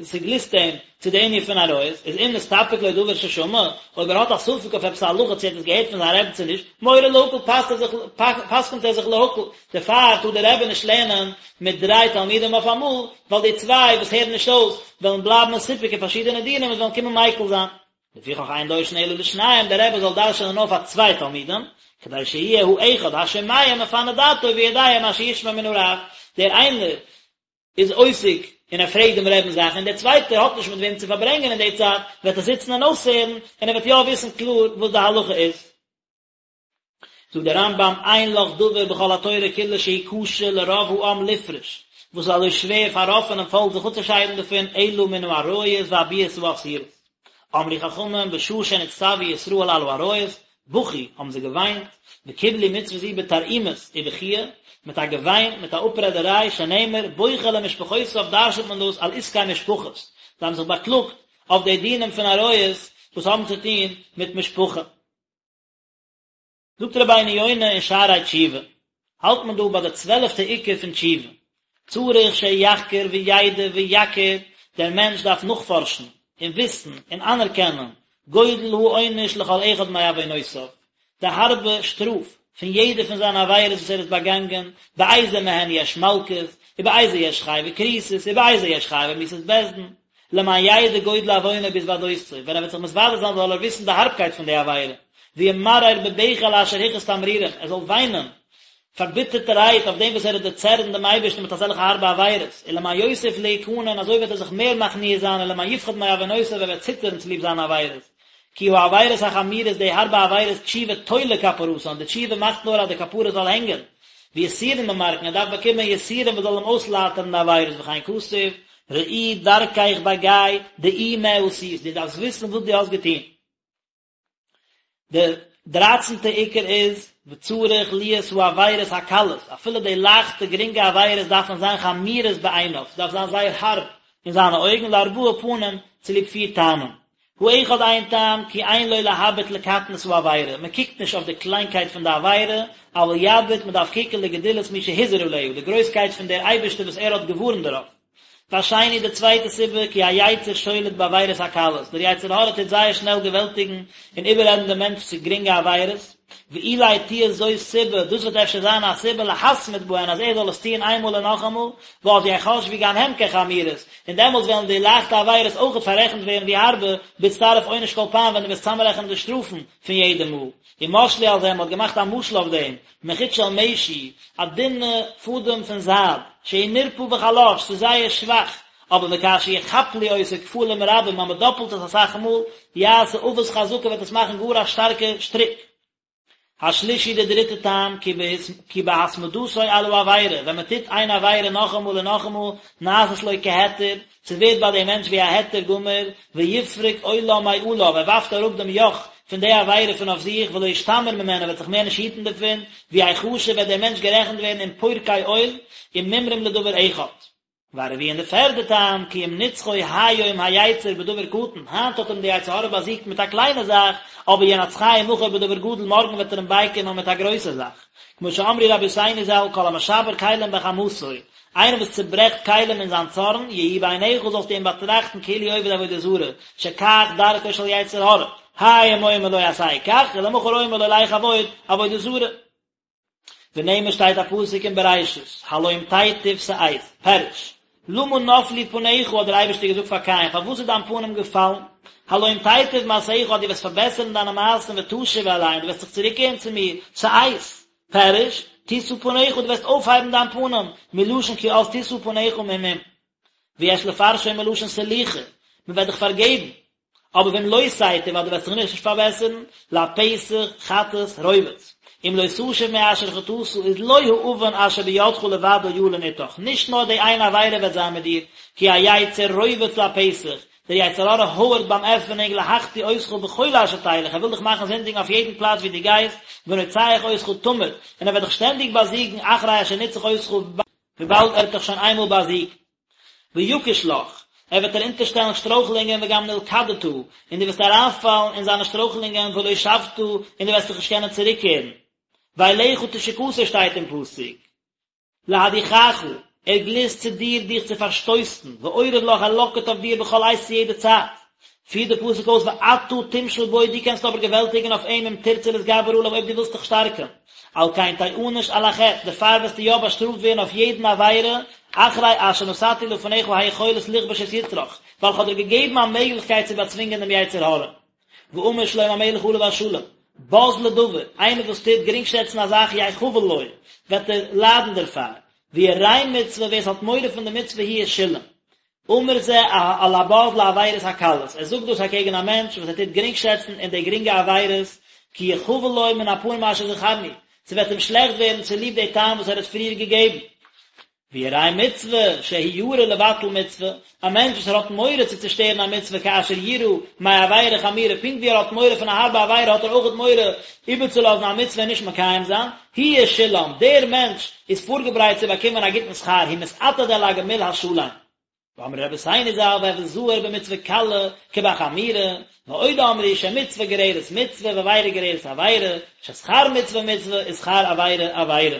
[SPEAKER 1] ס'גליסט אים צו די ענין פון עריות, איז אם נסתפק לו דבר ששמע, אויב ער האט א ספק אויף עפעס א הלכה צו ער האט עס געהערט פון זיין רבי צו נישט, מורה להקל פסק'ט ער זיך פסק'נט ער זיך להקל, דערפאר טאר דער רבי נישט לערנען מיט דריי תלמידים אויף אמאל, ווייל די צוויי וואס הערן נישט אויס וועלן בלייבן מסופק אין פארשידענע דינים און וועלן קומען מיקל זיין. לפיכך אין דורשין אלא לשניים, דער רבי זאל דרש'ענען נאר פאר צוויי תלמידים, כדי שיהיה האחד השומע מפנה דעתו ויודע מה שישמע מן הרב, דער איינער איז עוסק און ער פרעגט דעם רעבען זאכן און דער צווייטער האט נישט מיט וועם צו פארברענגען אין די צייט, וועט ער זיצן און אויסהערן און ער וועט יא וויסן קלאר וואס די הלכה איז. זאגט דער רמב"ם אין לך דבר בכל התורה כולה שהוא קשה לרוב העם לפרוש, וואס איז אזוי שווער פאר רוב פונעם פאלק זיך אפצושיידן דערפון, אלא מן העריות והביאות האסורות. אמרו חכמים בשעה שנצטוו ישראל על העריות, בכו, האבן זיי געוויינט, וקיבלו מצוה זו בתרעומות ובכיה, מיט א געוויין, מיט א אפרעדעריי, שנאמר, בוכה למשפחותיו דרש'נט מען דאס על עסקי משפחות, זיי האבן זיך באקלאגט אויף די דינים פון עריות וואס האבן צו טון מיט משפחה. זאגט רבינו יונה אין שערי תשובה, האלט מען דא ביי די צוועלעפטע עיקר פון תשובה, צריך שיחקור וידע ויכיר, דער מענטש דארף נאכפארשן און וויסן און אנערקענען גודל העונש לכל אחד מעוונותיו, די הארבע שטראף פון יעדע פון זיינע עבירות וואס ער איז באגאנגען, באיזה מהן יש מלקות, ובאיזה יש חייבי כריתות, ובאיזה יש חייבי מיתות בית דין. למען ידע גודל עוונו בהתוודותו, ווען ער וועט זיך מתוודה זיין זאל ער וויסן די הארבקייט פון די עבירה, וימרר בבכי על אשר הכעיס תמרורים, ער זאל וויינען פארביטערטערהייט אויף דעם וואס ער האט דערצערנט דעם אייבערשטן מיט אזעלכע הארבע עבירות, ולמען יוסיף להכנע און אזוי וועט ער זיך מער מכניע זיין ולמען יפחד מעוונותיו ער וועט ציטערן צוליב זיינע עבירות. כי העבירות החמורות די הארבע עבירות תשובה תולה כפרתן, די תשובה מאכט נאר אז די כפרה זאל הענגען, ויסורין ממרקין ער דארף באקומען יסורים וואס זאל אים אויסלייטערן די עבירות וכן כתוב, ראי דרכך בגיא, דעי מה עשית, דו דארפסט וויסן וואס דו האסט געטון. די דרייצנטע עיקר איז, וצריך להיות העבירות הקלות, אפילו די לייכטע גרינגע עבירות דארפן זיין חמורות בעיניו, ס'דארף זיין זייער הארב אין זיינע אויגן, לארבעה פנים, צוליב פיר טעמים. האחד איין טעם, כי אין לו להביט לקטנות העבירה, מען קוקט נישט אויף די קליינקייט פון די עבירה, אבל יביט, מען דארף קוקן לגדולת מי שהזהיר עליה, די גרויסקייט פון דער אייבערשטער וואס ער האט געווארנט דערויף. והשני די צווייטע סיבה, כי היצר שולט בעבירות הקלות, דער יצר הרע טוט זייער שנעל געוועלטיגן און איבעררעדן דעם מענטש צו גרינגע עבירות, ואולי תהיה זו סיבה, דאס וועט אפשר זיין א סיבה להתמיד בהן אז ער זאל עס טוען איינמאל און נאכאמאל, ואז יחשבו גם הם כחמורות, און דעמאלטס וועלן די לייכטע עבירות אויכעט פאררעכנט ווערן ווי הארבע, בהצטרף עונש כל פעם ווען דו וועסט צאמרעכענען די שטראפן פון יעדע מאל. ומשלו על זה, מען האט געמאכט א משל אויף דעם, מחוט של משי, א דינע פאדעם פון זייד, שהוא נרפה וחלש, ס'איז זייער שוואך, אבער וכאשר יכפלו אותו כפלים רבים, אז מען דאפלט עס אסאך מאל, יעשה עבות חזקה וועט עס מאכן גאר א שטארקע שטריק. השלישי די דריטע טעם, כי בהתמדתו על העבירה, ווען מען טוט איין עבירה נאכאמאל און נאכאמאל, נעשית לו כהיתר, ס'ווערט ביי דעם מענטש ווי א היתר גמור, ויפרוק עולה מעליו, ער ווארפט אראפ דעם יאך פון די עבירה פון אויף זיך, ולא ישתמר ממנה, ער וועט זיך מער נישט היטן דערפון, ויחשב וועט דער מענטש גערעכנט ווערן עם פורקי עול, ומומרים לדבר אחד. והרביעי און די פערדע טעם, כי אם נצחו היום היצר בדבר קטן, היינט האט אים די יצר הרע באזיגט מיט א קליינע זאך, אבער ינצחהו מחר בדבר גדול, מארגן וועט ער אים בייקומען מיט א גרויסע זאך. כמו שאמרו רבותינו ז"ל, כל המשבר כלים בחמתו, איינער וואס צוברעכט כלים אין זיין צארן, יהי בעיניך זאלסטו אים באטראכטן כאילו עובד עבודה זרה, שכך דרכו של יצר הרע, היום אומר לו עשה כך, ולמחר אומר לו לך עבוד עבודה זרה. ונאמר שטייט א פסוק אין בראשית, הלום תיטיב שאת, פירוש, למה נפלו פניך האט דער אייבערשטער געזאגט פאר קין, פארוואס איז דיין פנים געפאלן? הלום תיטיב מעשיך אז דו וועסט פארבעסערן דיינע מעשים ותשוב אלי און דו וועסט זיך צוריקקערן צו מיר, שאת, פירוש, תשא פניך דו וועסט אויפהייבן דיין פנים, מלשון כי אז תשא פניך ממום. ויש לפרשו מלשון סליחה, מען וועט דיך פארגעבן. אבער ואם לא תיטיב אז דו וועסט זיך נישט פארבעסערן, לפתח חטאת רובץ. אם לא תשוב מאשר חטאת איז לא העון אשר בידך לבדו ילין אתך, נישט נאר די איין עבירה וועט זיין מיט דיר, כי היצר רובץ לפתח, דער יצר הרע הויערט ביים עפענונג להחטיא אותך בכל אשר תלך, ער וויל דיך מאכן זינדיגן אויף יעדן פלאץ וואו דו גייסט, ונוצח אותך תמיד, און ער וועט דיך שטענדיג באזיגן אחרי אשר ניצח אותך, וויבאלד ער האט דיך שוין איינמאל באזיגט. ויקיש לך, ער וועט דיר אונטערשטעלן שטרויכלונגען וגם נלכדת, און דו וועסט אריינפאלן אין זיינע שטרויכלונגען ולא שבת, און דו וועסט זיך נישט קענען צוריקקערן. ואליך תשוקתו שטייט אין פסוק. להדיחך, ער גליסט צו דיר דיך צו פארשטויסן, ואורב לך, ער לאקערט אויף דיר בכל עת צו יעדע צייט. פירט דער פסוק אויס ואתה תמשול בו, דו קענסט אבער געוועלטיגן אויף אים אם תרצה להתגבר עליו אויב דו ווילסט דיך שטארקן. על כן תענש על החטא, דערפאר וועסטו יא באשטראפט ווערן אויף יעדן עבירה, אחרי אשר נתתי לפניך היכולת לכבוש את יצרך, ווייל איך האב דיר געגעבן א מעגליכקייט צו באצווינגען דעם יצר הרע. ואמר שלמה המלך עליו השלום, בז לדבר, איינער וואס טוט גרינגשעצן א זאך יחבל לו, וועט ער ליידן דערפאר, וירא מצוה, ווער עס האט מורא פון די מצוה הוא ישולם. אמר זה על הבז לעבירות הקלות, ער זאגט דאס אקעגן א מענטש וואס ער טוט גרינגשעצן אין די גרינגע עבירות, כי יחבל לו מן הפנים אשר זכרנו, ס'וועט אים שלעכט ווערן צוליב די טעם וואס ער האט פריער געגעבן. וירא מצוה, שהוא ירא לבטל מצוה, א מענטש וואס ער האט מורא צו צושטערן א מצוה כאשר יירא מעבירה חמורה, פונקט ווי ער האט מורא פון א הארבע עבירה האט ער אויכעט מורא איבערצולאזן א מצוה און נישט מקיים זיין, הוא ישולם, דער מענטש איז פארגעברייט צו באקומען א גוטן שכר, הוא מתעתד אל הגמול השלם. ואמרו רבותינו ז"ל והוי זהיר במצוה קלה כבחמורה, ועוד אמרו שמצוה גוררת מצוה ועבירה גוררת עבירה, ששכר מצוה מצוה ושכר עבירה עבירה.